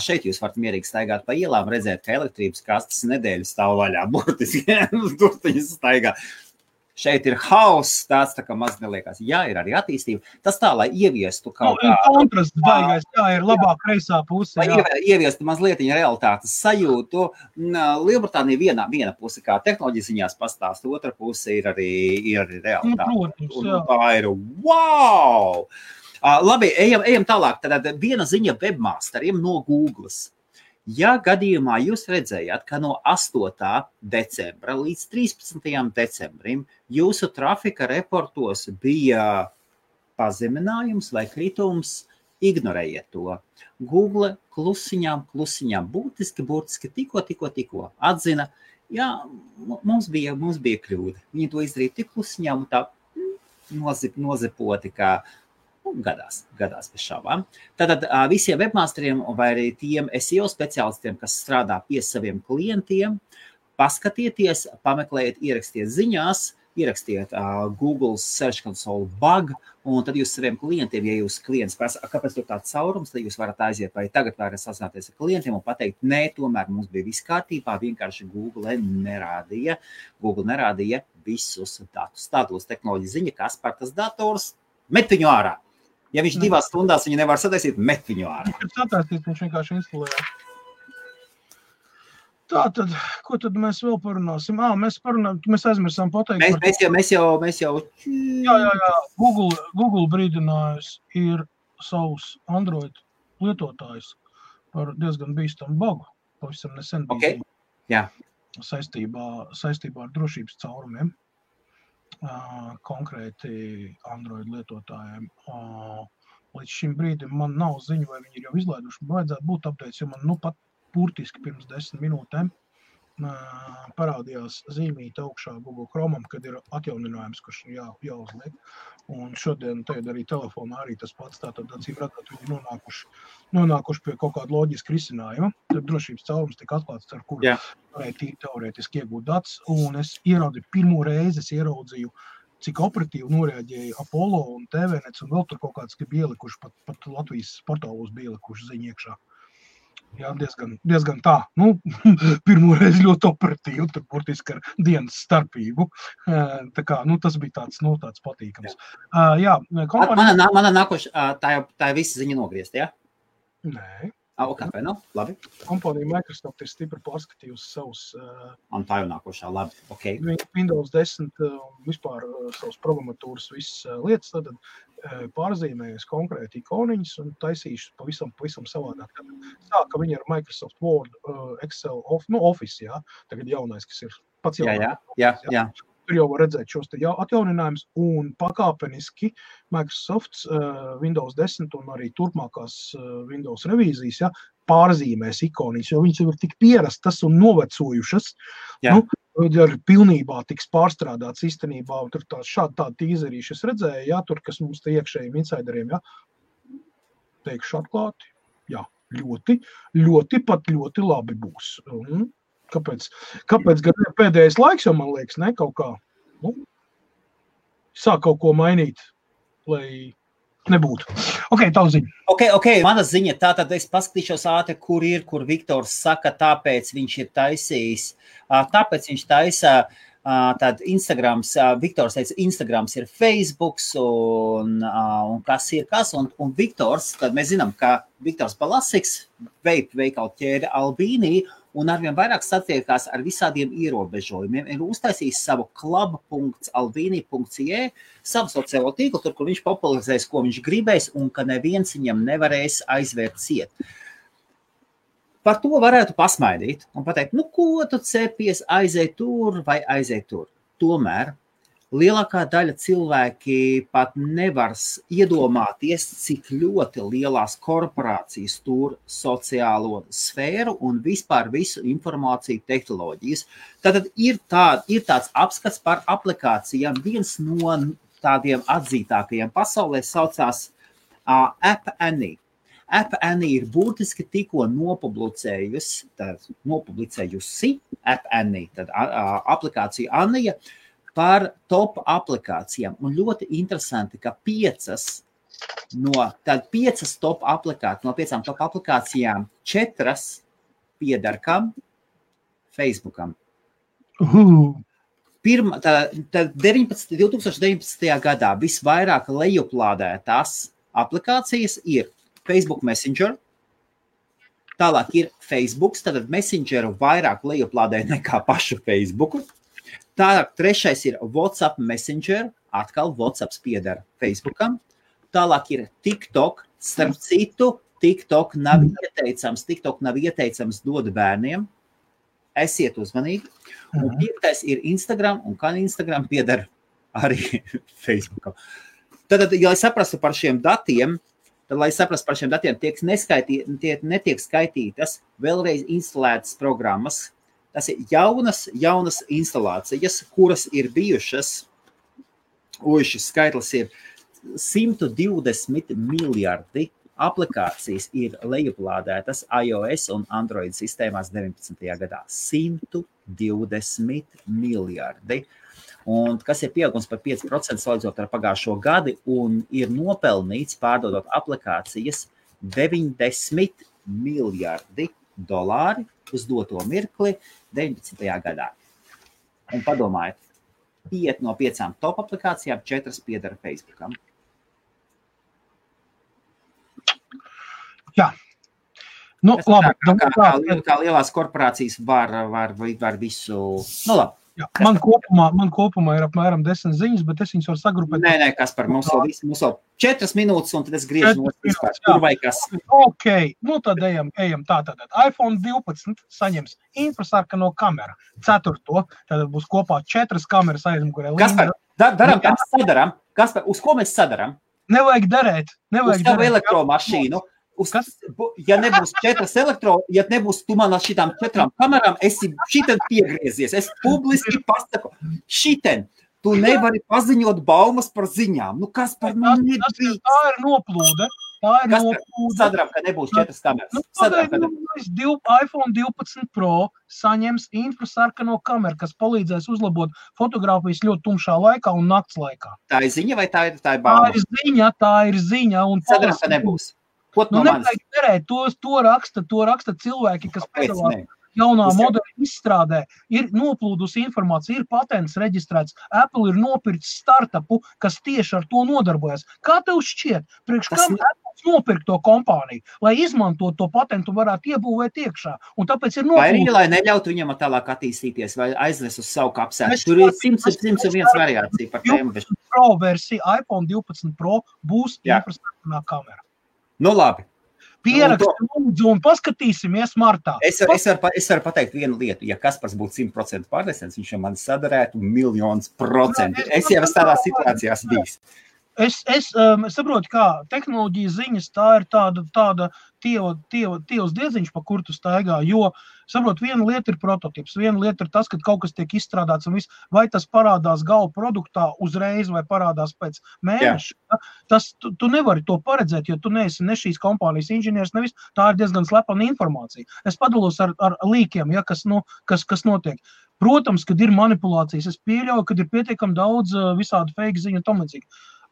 Šeit jūs varat mierīgi staigāt pa ielām, redzēt, ka elektrības kastes nedēļu stāv vaļā, burtiski, durtiņas staigā. Šeit ir hauss, tāds tā kā maz neliekās. Jā, ir arī attīstība. Tas tā, lai ieviestu kaut kā... Kontrasts baigais, ir labāk kreisā puse. Lai ieviestu mazlietiņa realitātes sajūtu. Lielbritānija viena puse, kā tehnoloģijas ziņās pastāst, otra puse ir arī realitāte. Protams, jā. Tā ir wow! Labi, ejam tālāk. Tad viena ziņa webmasteriem no Googles. Ja gadījumā jūs redzējāt, ka no 8. decembra līdz 13. decembrim jūsu trafika reportos bija pazeminājums vai kritums, ignorējiet to. Google klusiņām, burtiski tikko atzina, jā, mums bija kļūda. Viņi to izdarīja tik klusiņām un tā nozipoti, kā gadās bez šaubām. Tātad visiem webmasteriem vai arī tiem SEO speciālistiem, kas strādā pie saviem klientiem, paskatieties, pameklējiet, ierakstiet ziņās, ierakstiet Google Search Console bug, un tad jūs saviem klientiem, ja jūs klients prasa, kāpēc tur tāds caurums, tad jūs varat aiziet vai tagad varat sasināties ar klientiem un pateikt, nē, tomēr mums bija viss kārtībā, vienkārši Google nerādīja visus datus. Tādos tehnoloģija ziņa, kas par tas dators, met viņu ārā. Ja viņš 2 stundās viņu nevar sataisīt, met viņu ārā. Viņš sataisīt, viņš vienkārši instalēja. Tātad, ko tad mēs vēl parunāsim? Mēs aizmirsām pateikt Mēs jau. Jā. Google brīdinājums ir savus Android lietotājus par diezgan bīstamu bagu. Pavisam nesen bija saistībā ar drošības caurumiem, konkrēti Android lietotājiem. Līdz šim brīdim man nav ziņu, vai viņi ir jau izlaiduši. Vajadzētu būt updates, jo man pat burtiski pirms 10 minūtēm parādījās zīmīte augšā Google Chromam, kad ir atjauninājums, kurš jāuzliek. Un šodien tagad arī telefonā arī tas pats, tātad acīm redzot, viņi nonākuši pie kaut kāda loģiska risinājuma. Tad drošības caurums tika atklāts, ar kuru varēja teorētiski iegūt datus. Un es pirmo reizi ieraudzīju, cik operatīvi noreaģēja Apollo un TVNets, un vēl tur kaut kāds bija ielikuši, pat Latvijas portālos bija ielikuši ziņu iekšā. Jā, diezgan tā. Pirmo reizi ļoti operatīvi, tur burtiski ar dienas starpību. Tā kā, tas bija tāds patīkams. Jā, Mana nākošā, tā ir visa ziņa nogriezt, jā? Nē. Okay, labi. Kompānija Microsoft ir stipri pārskatījusi savus un tā jau nākošā, labi, okay. Windows 10 vispār savus programmatūras visas lietas, tad pārzīmējas konkrēti ikoniņas un taisījuši pavisam savādāk. Sāka viņi ar Microsoft Word, Excel, Office, jā, tagad jaunais, kas ir pats jaunais. Jā. Tur jau var redzēt šos te atjauninājumus un pakāpeniski Microsoft Windows 10 un arī turpmākās Windows revīzijas pārzīmēs ikoniņas, jo viņas jau ir tik pierastas un novecojušas. Ar pilnībā tiks pārstrādāts īstenībā, un tur tādi tīzerīši es redzēju, tur, kas mums te iekšējiem insideriem, teikšu atklāti, ļoti labi būs. Kāpēc gan pēdējais laiks, jo man liekas, kaut kā, sāk kaut ko mainīt, lai nebūtu. Tavu ziņa. Mana ziņa, tātad es paskatīšos ātri, kur Viktors saka, tāpēc viņš ir taisījis, tāpēc viņš taisa tad Instagrams, Viktors teica, Instagrams ir Facebooks un kas ir kas, un Viktors, tad mēs zinām, ka Viktors Balasiks veikalu ķēde Albīnī, un arvien vairāk satiekās ar visādiem ierobežojumiem. Ir uztaisījis savu club.albini.ie, savu sociālo tīklu, tur, kur viņš popularizēs, ko viņš gribēs, un ka neviens viņam nevarēs aizvērt ciet. Par to varētu pasmaidīt un pateikt, ko tu cepies, aizej tur vai aizej tur. Tomēr lielākā daļa cilvēki pat nevar iedomāties, cik ļoti lielās korporācijas tur sociālo sfēru un vispār visu informāciju tehnoloģijas. Tātad ir tāds apskats par aplikācijām. Viens no tādiem atzītākajiem pasaulē saucās App Annie. App Annie ir būtiski tikko nopublicējusi App Annie, tad aplikācija Anija, par top aplikācijām. Un ļoti interesanti, ka 5 top aplikācijām, no 5 top aplikācijām 4 pieder kam? Facebookam. 2019. gadā visvairāk lejuplādētās aplikācijas ir Facebook Messenger, tālāk ir Facebooks, tad Messengeru vairāk lejuplādē nekā pašu Facebooku. Tālāk 3. ir WhatsApp Messenger, atkal WhatsApps pieder Facebookam. Tālāk ir TikTok, starp citu, TikTok nav ieteicams dod bērniem. Esiet uzmanīgi. Un 5. ir Instagram, un kā Instagram pieder arī Facebookam. Tad, ja saprastu par šiem datiem, netiek skaitītas vēlreiz instalētas programmas. Tas ir jaunas instalācijas, kuras ir bijušas, šis skaitlis ir 120 miljardi aplikācijas ir lejuplādētas iOS un Android sistēmās 19. gadā. 120 miljardi. Un kas ir pieaugums par 5% salīdzinot ar pagājušo gadu un ir nopelnīts pārdodot aplikācijas 90 miljardi dolāri uz doto mirkli 19. gadā. Un padomājiet, 5 no 5 top aplikācijām 4 pieder Facebookam. Jā. Nu, labi. Kā lielās korporācijas var visu... Nu, labi. Jā, man kopumā ir apmēram 10 ziņas, bet es viņas varu sagrupēt. Nē, Kaspar, mums vēl 4 minūtes, un tad es griežu no vispār. Tur vai kas? Ok, nu tad ejam tātad. iPhone 12 saņems infrasarkano kameru. 4. Tad būs kopā 4 kameras aizmugurē. Kaspar, daram, kā sadaram? Kaspar, uz ko mēs sadaram? Nevajag darēt. Uz tavu elektromašīnu. Ja nebūs 4 ja nebūs tu man ar šitām 4 kamerām, esi šiten piegriezies. Es publiski pasaku, šiten, tu nevari paziņot baumas par ziņām. Nu, kas par mani nedrīkst? Tā ir noplūde. Sadaram, ka nebūs 4 kameras. iPhone 12 Pro saņems infrasarkano kameru, kas palīdzēs uzlabot fotogrāfijas ļoti tumšā laikā un nakts laikā. Tā ir ziņa vai tā ir bauma? Tā ir ziņa. Sadaram, ka nebūs. Nu, nevajag derēt, to raksta cilvēki, kas piedalās jaunā modeļa izstrādē, ir noplūdusi informācija, ir patents reģistrēts, Apple ir nopircis startupu, kas tieši ar to nodarbojas. Kā tev šķiet, priekš kam Apple nopirkt to kompāniju, lai izmantot to patentu varētu iebūvēt iekšā, un tāpēc ir noplūdusi. Vai arī, lai neļautu viņam tālāk attīstīties, vai aiznes uz savu kapsētu. Tur ir 101 variācija par tēmu. Pro versija, iPhone 12 Pro būs infrasarkanā kamera. Nu, labi. Pieraksti lūdzu un paskatīsimies martā. Es varu pateikt vienu lietu. Ja Kaspars būtu 100% pārliecināts, viņš jau man sadarētu 1,000,000%. Es jau esmu tādā situācijās bijis. Es saprotu, kā tehnoloģija ziņas, tā ir tāda tievas diedziņš, pa kur tu staigā, jo, saprot, viena lieta ir prototips, viena lieta ir tas, ka kaut kas tiek izstrādāts un viss, vai tas parādās gala produktā uzreiz vai parādās pēc mēneša. Tas, tu nevari to paredzēt, jo tu neesi ne šīs kompānijas inženieris, nevis, tā ir diezgan slepena informācija. Es padalos ar līkiem, ja, kas notiek. Protams, kad ir manipulācijas, es pieļauju, kad ir pietiekami daudz visādi fake ziņu un tam līdzīgi.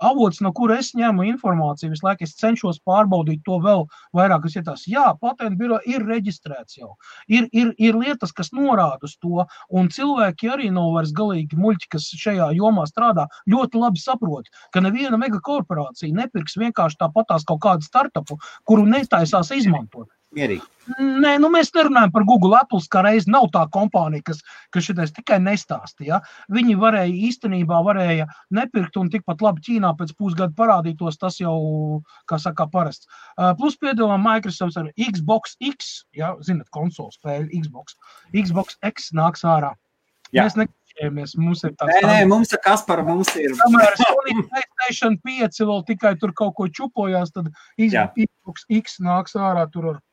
Avots, no kura es ņemu informāciju, visu laiku es cenšos pārbaudīt to vēl vairāk, kas ietās. Jā, patentu biro ir reģistrēts jau. Ir lietas, kas norāda uz to, un cilvēki arī nav vairs galīgi muļķi, kas šajā jomā strādā, ļoti labi saprot, ka neviena megakorporācija nepirks vienkārši tāpatās kaut kādu startupu, kuru netaisās izmantot. Mierīgi. Nē, nu mēs nerunājam par Google, Apple, kā reiz nav tā kompānija, kas šitais tikai nestāsta, ja? Viņi īstenībā varēja nepirkt un tikpat labi Ķīnā pēc pusgada parādītos, tas jau, kā saka, parasts. Plus piedāvā Microsoft ar Xbox X, ja, zinat, konsolu spēļu Xbox X nāks ārā. Jā. Mēs nekšķējamies, mums ir tāds... Nē, mums ir Kaspar, mums ir... Kamēr Sony PlayStation 5 vēl tikai tur kaut ko čupojās, tad Xbox X nāks ārā tur ar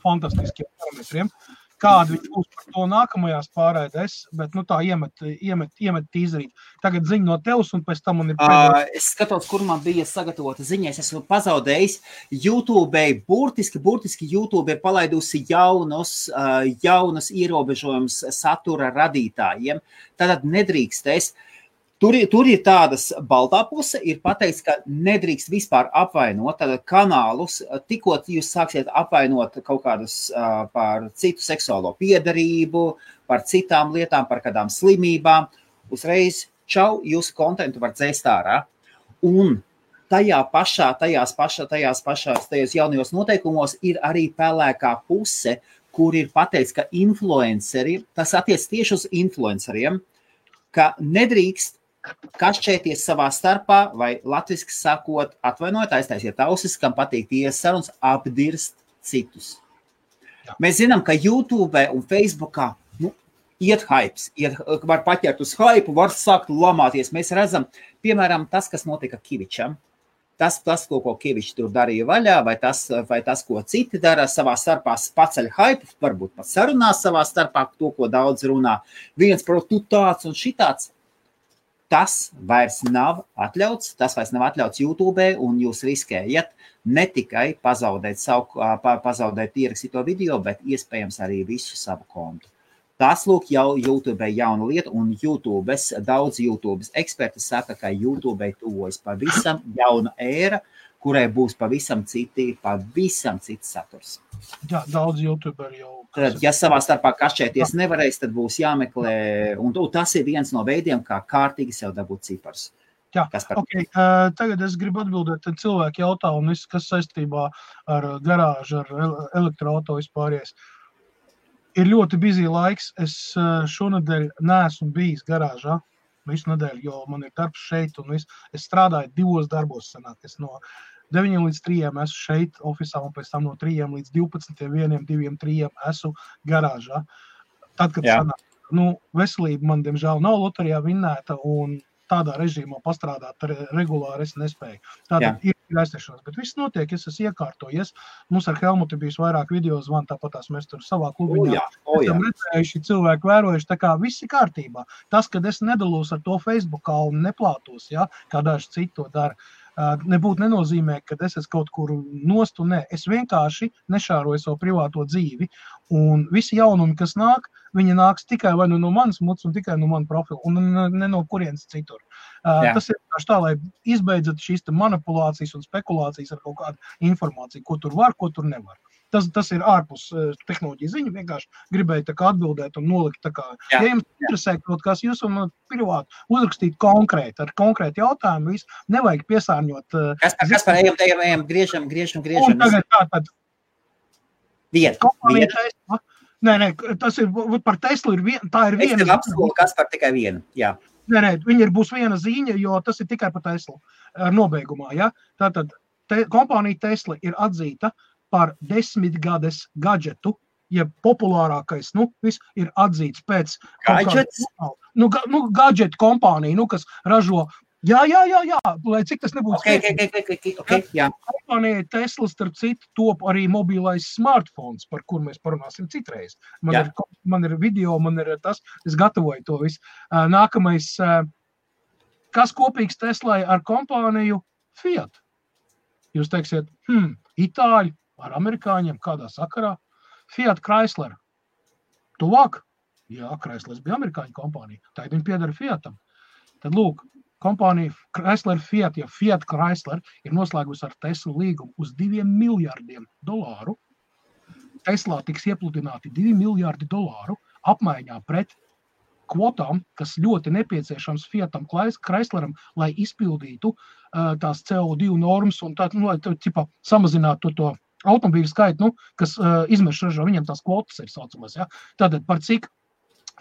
fantastiskiem parametriem. Kādi viņš būs par to nākamajās pārēdēs, bet tā iemet tīzerīt. Tagad ziņa no tevs, un pēc tam man ir pēdējais. Es skatos, kur man bija sagatavota ziņa. Es esmu pazaudējis YouTube, burtiski YouTube ir palaidusi jaunus ierobežojumus satura radītājiem. Tātad nedrīkstēs. Tur ir tādas baltā puse, ir pateikts, ka nedrīkst vispār apvainot kanālus, tikko jūs sāksiet apvainot kaut kādus par citu seksuālo piedarību, par citām lietām, par kādām slimībām. Uzreiz, čau, jūsu kontentu var dzēst ārā. Un tajos jaunajos noteikumos ir arī pelēkā puse, kur ir pateikts, ka influenceri, tas attiec tieši uz influenceriem, ka nedrīkst kašķēties savā starpā, vai latviski sakot, atvainojot, aiztaisiet ausis, kam patīk tiesas sarunas, apdirst citus. Mēs zinām, ka YouTube un Facebookā iet hypes, var paķert uz hypu, var sākt lamāties. Mēs redzam, piemēram, tas, kas notika Kivičam, tas ko Kivičs tur darīja vaļā, vai tas, ko citi dara savā starpā, paceļ hypu, varbūt pat sarunās savā starpā, to, ko daudz runā. Viens par tu tāds un šitāds. Tas vairs nav atļauts YouTube, un jūs riskējat ne tikai pazaudēt ierakstīto video, bet iespējams arī visu savu kontu. Tas, lūk, jau YouTube jauna lieta, un daudz YouTube eksperti saka, ka YouTube tuvojas pavisam jauna ēra, kurai būs pavisam cits saturs. Jā, daudz YouTuberi jau... Tad, ja savā starpā kašķēties nevarēs, tad būs jāmeklē, un tas ir viens no veidiem, kā kārtīgi sev dabūt cipars. Jā, okay. Tagad es gribu atbildēt cilvēku jautājumu, kas saistībā ar garāžu, ar elektroauto vispāries. Ir ļoti busy laiks. Es šonedēļ neesmu bijis garāžā visu nedēļu, jo man ir darbs šeit un viss. Es strādāju 2 darbos sanāk. Es no 9 līdz 3 esmu šeit ofisā un pēc tam no 3 līdz 12, 1, 2, 3 esmu garāžā. Tad, kad sanāk, veselība man, diemžēl, nav loterijā vinnēta un tādā režīmā pastrādāt regulāri es nespēju. Tātad ir aiztiešanās, bet viss notiek, es esmu iekārtojies. Mums ar Helmutu bijis vairāk video zvanu, tāpatās mēs tur savā klubiņā esam redzējuši, cilvēki vērojuši, tā kā viss ir kārtībā. Tas, kad es nedalos ar to Facebookā un neplātos, kā daži citi to dara, nebūtu nenozīmē, ka es esmu kaut kur nostu, nē. Es vienkārši nešāroju savu privāto dzīvi, un visi jaunumi, kas nāk, viņi nāks tikai vai no manas muts un tikai no mana profila, un ne no kurienes citur. Tas ir tā, lai izbeidzat šīs manipulācijas un spekulācijas ar kaut kādu informāciju, ko tur var, ko tur nevar. Tas ir ārpus tehnoloģiju ziņu, vienkārši gribēju tā kā atbildēt un nolikt tā kā, ja jums interesē kaut kas, jūs un privāti uzrakstīt konkrēti, ar konkrēti jautājumu, visu, nevajag piesārņot. Kas par ejam, griežam. Un tagad tātad. Viena. Nē, tas ir, par Teslu tā ir viena. Es tev apskolu, kas par tikai vienu, jā. Nē, viņa būs viena ziņa, jo tas ir tikai par Teslu nobeigumā, ja? Tātad kompānija Tesla ir atzīta par 10 gades gadžetu, ja populārākais, viss ir atzīts pēc... Gadžets? Gadžetu kompānija, kas ražo... Jā, lai cik tas nebūtu... Okay, jā. Kompānija Tesla, starp citu, top arī mobilais smartphones, par kur mēs parunāsim citreiz. Man ir video, man ir tas, es gatavoju to visu. Nākamais, kas kopīgs Teslai ar kompāniju Fiat? Jūs teiksiet, Itāļi, ar amerikāņiem, kādā sakarā. Fiat Chrysler. Tuvāk? Jā, Chryslers bija amerikāņu kompānija. Tagad viņi piedara Fiatam. Tad lūk, kompānija Chrysler Fiat, ja Fiat Chrysler ir noslēgusi ar Teslu līgumu uz $2 miljardiem. Teslā tiks iepludināti $2 miljardi apmaiņā pret kvotām, kas ļoti nepieciešams Fiatam Chrysleram, lai izpildītu tās CO2 normas un tā, lai samazinātu to automobīļu skaitu, kas izmešu ražo, viņiem tās kvotas ir saucamās. Ja? Tātad par cik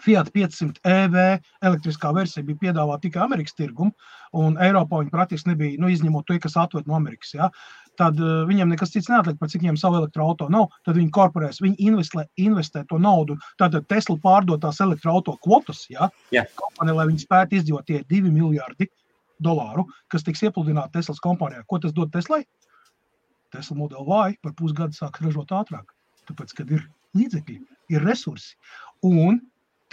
Fiat 500 EV elektriskā versija bija piedāvāta tikai Amerikas tirgumu, un Eiropā viņi praktiski nebija, izņemot to, kas atved no Amerikas. Ja? Tad viņiem nekas cits neatliek, par cik viņiem savu elektroauto nav, tad viņi korporēs, viņi investē to naudu, tātad Tesla pārdotās elektroauto kvotas, kompānija, lai viņi spētu izdzīvot tie $2 miljardi, kas tiks iepludināti Teslas kompānijā. Ko tas dod Teslai? Tesla Model Y par pusgadu sāks ražot ātrāk, tāpēc, kad ir līdzekļi, ir resursi. Un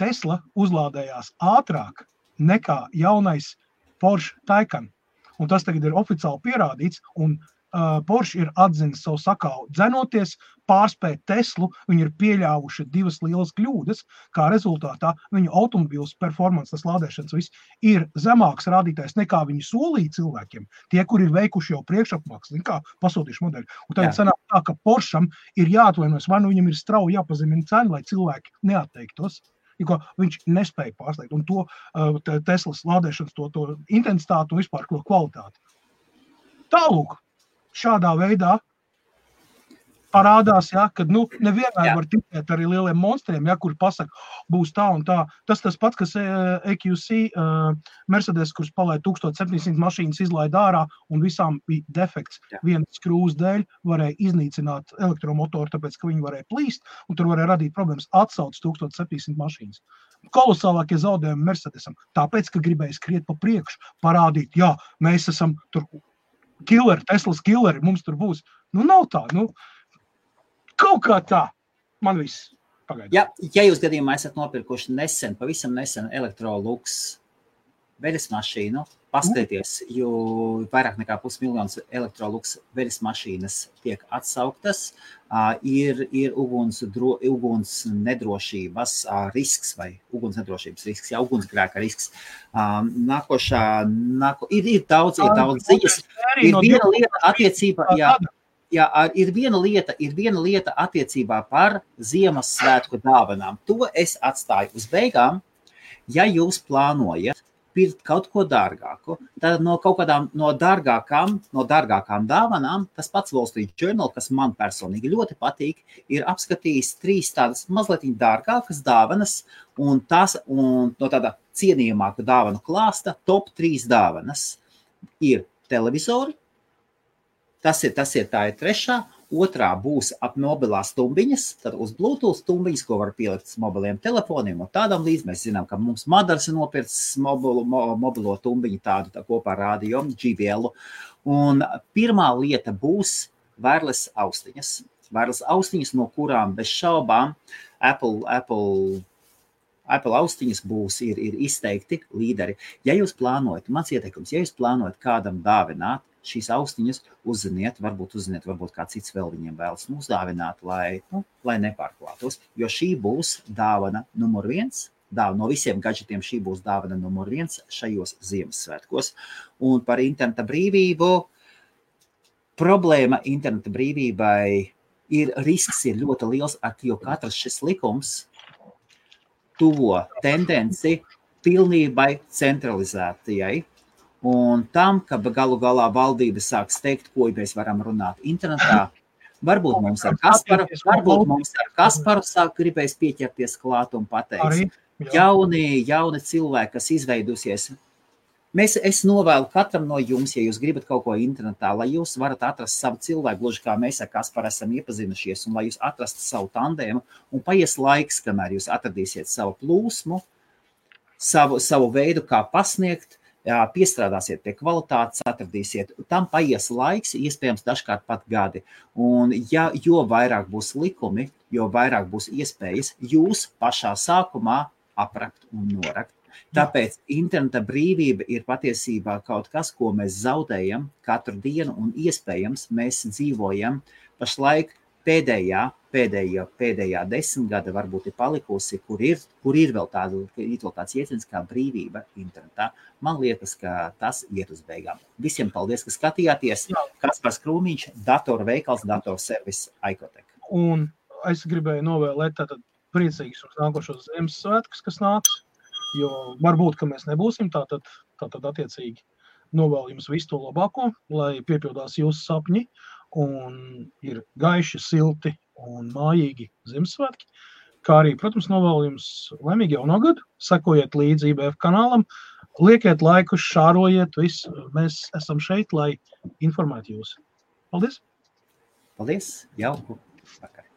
Tesla uzlādējās ātrāk nekā jaunais Porsche Taycan. Un tas tagad ir oficiāli pierādīts, un Porsche ir atzinis savu sakāvu. Dzenoties pārspēt Teslu, viņi ir pieļāvuši 2 lielas kļūdas, kā rezultātā viņu automobīls performance, tas lādēšanas viss, ir zemāks rādītājs nekā viņi solīja cilvēkiem, tie, kur ir veikuši jau priekšapmaksas, kā pasūtījuši modeļu. Un tagad sanāk tā, ka Porscham ir jāatvainojas, vai viņam ir strauji jāpazemina cena, lai cilvēki neatteiktos. Jo viņš nespēja pārslēgt, un to Teslas lādēšanas, to intensitāti un vispār kvalitāti. Tālūk, šādā veidā parādās, kad nevienmēr var ticēt arī lieliem monstriem, kur pasaka, būs tā un tā. Tas pats, kas EQC Mercedes, kurš palaid 1700 mašīnas izlaida ārā un visām bija defekts. Vienas skrūves dēļ varēja iznīcināt elektromotoru, tāpēc, ka viņi varēja plīst, un tur varēja radīt problēmas atsauc 1700 mašīnas. Kolosālākie zaudējumi Mercedesam, tāpēc, ka gribēja skriet pa priekšu, parādīt, mēs esam tur killeri, Teslas killeri, mums tur būs. Nav tā, kaut kā tā. Man viss pagaidām. Ja jūs gadījumā esat nopirkuši pavisam nesen Electrolux veļas mašīnu, paskatieties, jo vairāk nekā 500 000 Electrolux veļas mašīnas tiek atsauktas, ir uguns nedrošības risks vai ugunsnedrošības risks, ugunsgrēka risks. Ir daudz ziņas. Ir viena lieta attiecībā, ir viena lieta attiecībā par Ziemassvētku dāvanām. To es atstāju uz beigām. Ja jūs plānojat pirkt kaut ko dārgāku. Tad no kaut kādām no dārgākām dāvanām, tas pats Wall Street Journal, kas man personīgi ļoti patīk, ir apskatījis 3 tādas mazliet dārgākas dāvanas, un no tāda cienījamāka dāvanu klāsta top 3 dāvanas ir televizori, tā ir 3. Otrā būs ap mobilās stumbiņas, tad uz Bluetooth stumbiņas, ko var pielikt uz mobiliem telefoniem un tādam līdz. Mēs zinām, ka mums Madars ir nopircis mobilo tumbiņu tādu kopā ar radio, JBL. Un pirmā lieta būs wireless austiņas. Wireless austiņas, no kurām bez šaubām Apple austiņas ir izteikti līderi. Ja jūs plānojat, mans ieteikums, ja jūs plānojat kādam dāvināt šīs austiņas, uzziniet, varbūt kā cits vēl viņiem vēlas uzdāvināt, lai nepārklātos, jo šī būs dāvana numur 1. No visiem gadžetiem šī būs dāvana numur 1 šajos Ziemassvētkos. Un par interneta brīvību, problēma interneta brīvībai risks ir ļoti liels, jo katrs šis likums tuvo tendenci pilnībai centralizētajai. Un tam, ka galu galā valdība sāk steigt, ko mēs varam runāt internetā, varbūt mums ar Kasparu sāk gribēs pieķerties klāt un pateikt, jauni cilvēki, kas izveidusies. Es novēlu katram no jums, ja jūs gribat kaut ko internetā, lai jūs varat atrast savu cilvēku, gluži kā mēs ar Kasparu esam iepazinušies, un lai jūs atrastu savu tandēmu, un paies laiks, kamēr jūs atradīsiet savu plūsmu, savu veidu, kā pasniegt, piestrādāsiet pie kvalitātes, atradīsiet. Tam paies laiks, iespējams dažkārt pat gadi. Un jo vairāk būs likumi, jo vairāk būs iespējas jūs pašā sākumā aprakt un norakt. Tāpēc interneta brīvība ir patiesībā kaut kas, ko mēs zaudējam katru dienu, un iespējams mēs dzīvojam pašlaik pēdējā 10 gada varbūt ir palikusi, kur ir vēl tāds jēdziens kā brīvība internetā. Man liekas, ka tas iet uz beigām. Visiem paldies, ka skatījāties. Kaspars Krūmiņš, datorveikals, datorservis Aikotek. Un es gribēju novēlēt tātad priecīgus un nākošos Ziemassvētkus, kas nāks, jo varbūt, ka mēs nebūsim, tātad attiecīgi novēlu jums visu to labāko, lai piepildās jūsu sapņi un ir gaiši, silti un mājīgi Ziemassvētki, kā arī, protams, novēlu jums laimīgu jauno gadu, sekojiet līdzi IBF kanālam, liekiet laikus, šārojiet, visu. Mēs esam šeit, lai informētu jūs. Paldies! Paldies! Jauku vakar!